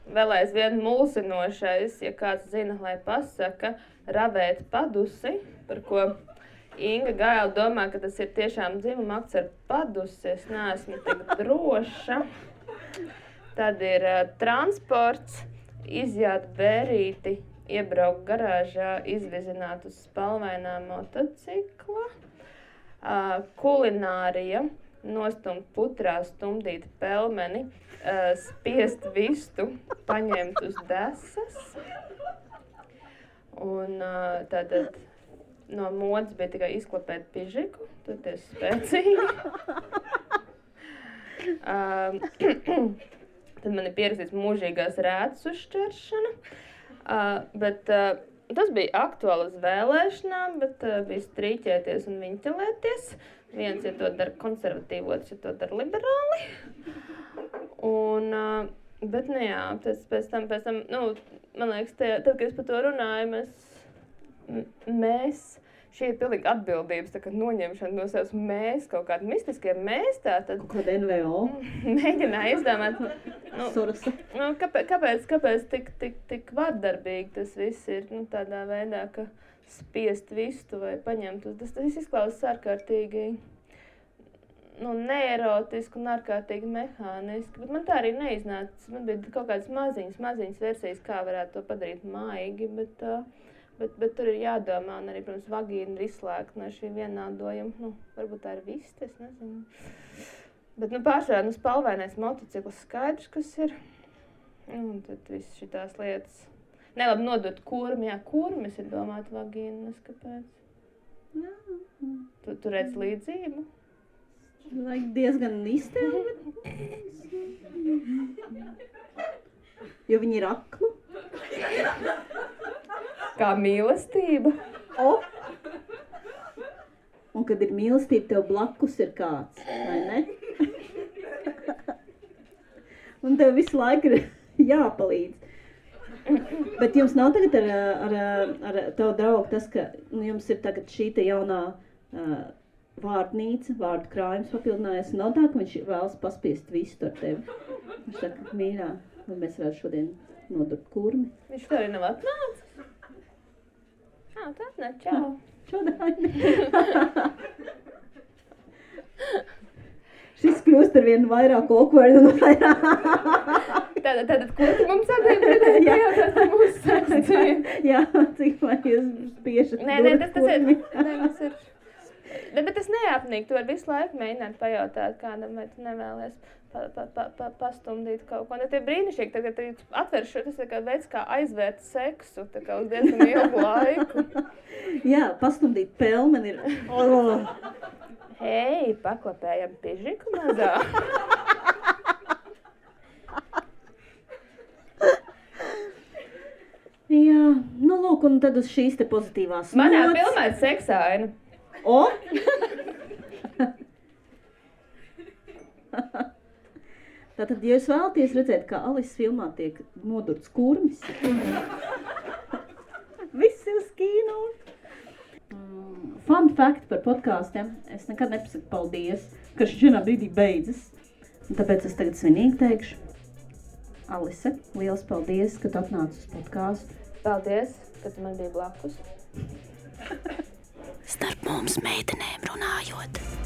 vēl aizvien mulsinošais, ja kāds zina, lai pasaka, ravēt padusi, par ko Inga Gaila domā, ka tas ir tiešām dzimuma akts ar padusi, es neesmu tik droša. Tad ir transports, izjāt bērīti, iebraukt garāžā, izvizināt uz spalvainā motocikla, kulinārija, nostumt putrā, stumdīt pelmeni, spiest vistu, paņemt uz desas. Un tātad no modes bija tikai izklapēt pižiku, toties spēcīgi. Tad man ir pierakstīts mūžīgās rētas uzšķeršana. Bet tas bija aktuāli uz vēlēšanām, bet bija strīķēties un viņķelēties. Viens, ja to dara konservatīvi, otrs, ja to dara liberāli. Bet, jā, pēc tam, man liekas, tad, kad es par to runāju, mēs, šī ir pilnīgi atbildības, tā kā noņemšana no savas mēs, kaut kādi mistiskie mēs, tātad. Kaut kāda NVO. Mēģināju izdomāt, kāpēc tik vardarbīgi tas viss ir, tādā veidā, ka spiest vistu vai paņemt uz, tas viss izklausās ārkārtīgi, neerotiski un ārkārtīgi mehāniski, bet man tā arī neiznāca. Man bija kaut kādas maziņas versijas, kā varētu to padarīt maigi, bet tur ir jādomā, un arī, protams, vagīna ir izslēgta no šī vienādojuma. Varbūt tā ir vista, es nezinu. Bet, pārsvarā, spalvainais motocikls skaidrs, kas ir. Un tad viss šitās lietas. Nelabi nodot kurmi, kurmis ir domāt vagīna, kāpēc? Tu redz līdzību? Diezgan iztēli. Jo viņi ir akli. Kā mīlestība. Un kad ir mīlestība, tev blakus ir kāds, vai ne? un tev visu laiku ir jāpalīdz. Bet jums nav tagad ar tavu draugu tas, ka jums ir tagad šī te jaunā vārdnīca, vārdu krājums papildinājies. Nav tā, ka viņš vēlas paspiest visu ar tevi. Viņš saka, mīļā, vai mēs varētu šodien nodurt kurmi? Viņš to arī nav atnācis. Tā atnāk, čau. Šodien. Šis kļūst ar vienu vairāk awkward un vairāk. Tātad, ko tu mums atdēļ pajautāt par mūsu sekciju? Jā, cik vai jūs spiešat Nē, tas ir. Bet tas neapnīk, tu vari visu laiku mēģināt pajautāt kādam, vai tu nevēlies pastumdīt kaut ko. Ne tie brīnišķīgi, tagad atver šo, tas ir kā veids, kā aizvērt seksu, tā kā uz diezgan ilgu laiku. Jā, pastumdīt pelmeni ir. Hei, paklapējam pižiku mazā. Jā, nu lūk, un tad uz šīs te pozitīvās nots. Manā filmā ir seksaina. O! Tātad, ja jūs vēlaties redzēt, kā Alises filmā tiek nodurts kurmis, viss ir uz kino. Fun fact par podkāstiem. Es nekad nepasaku paldies, ka šis vienā brīdī beidzas. Un tāpēc es tagad svinīgi teikšu. Alise, liels paldies, ka tu atnāci uz podkāstu. Paldies, ka tu man biji blakus. Starp mums meitenēm runājot.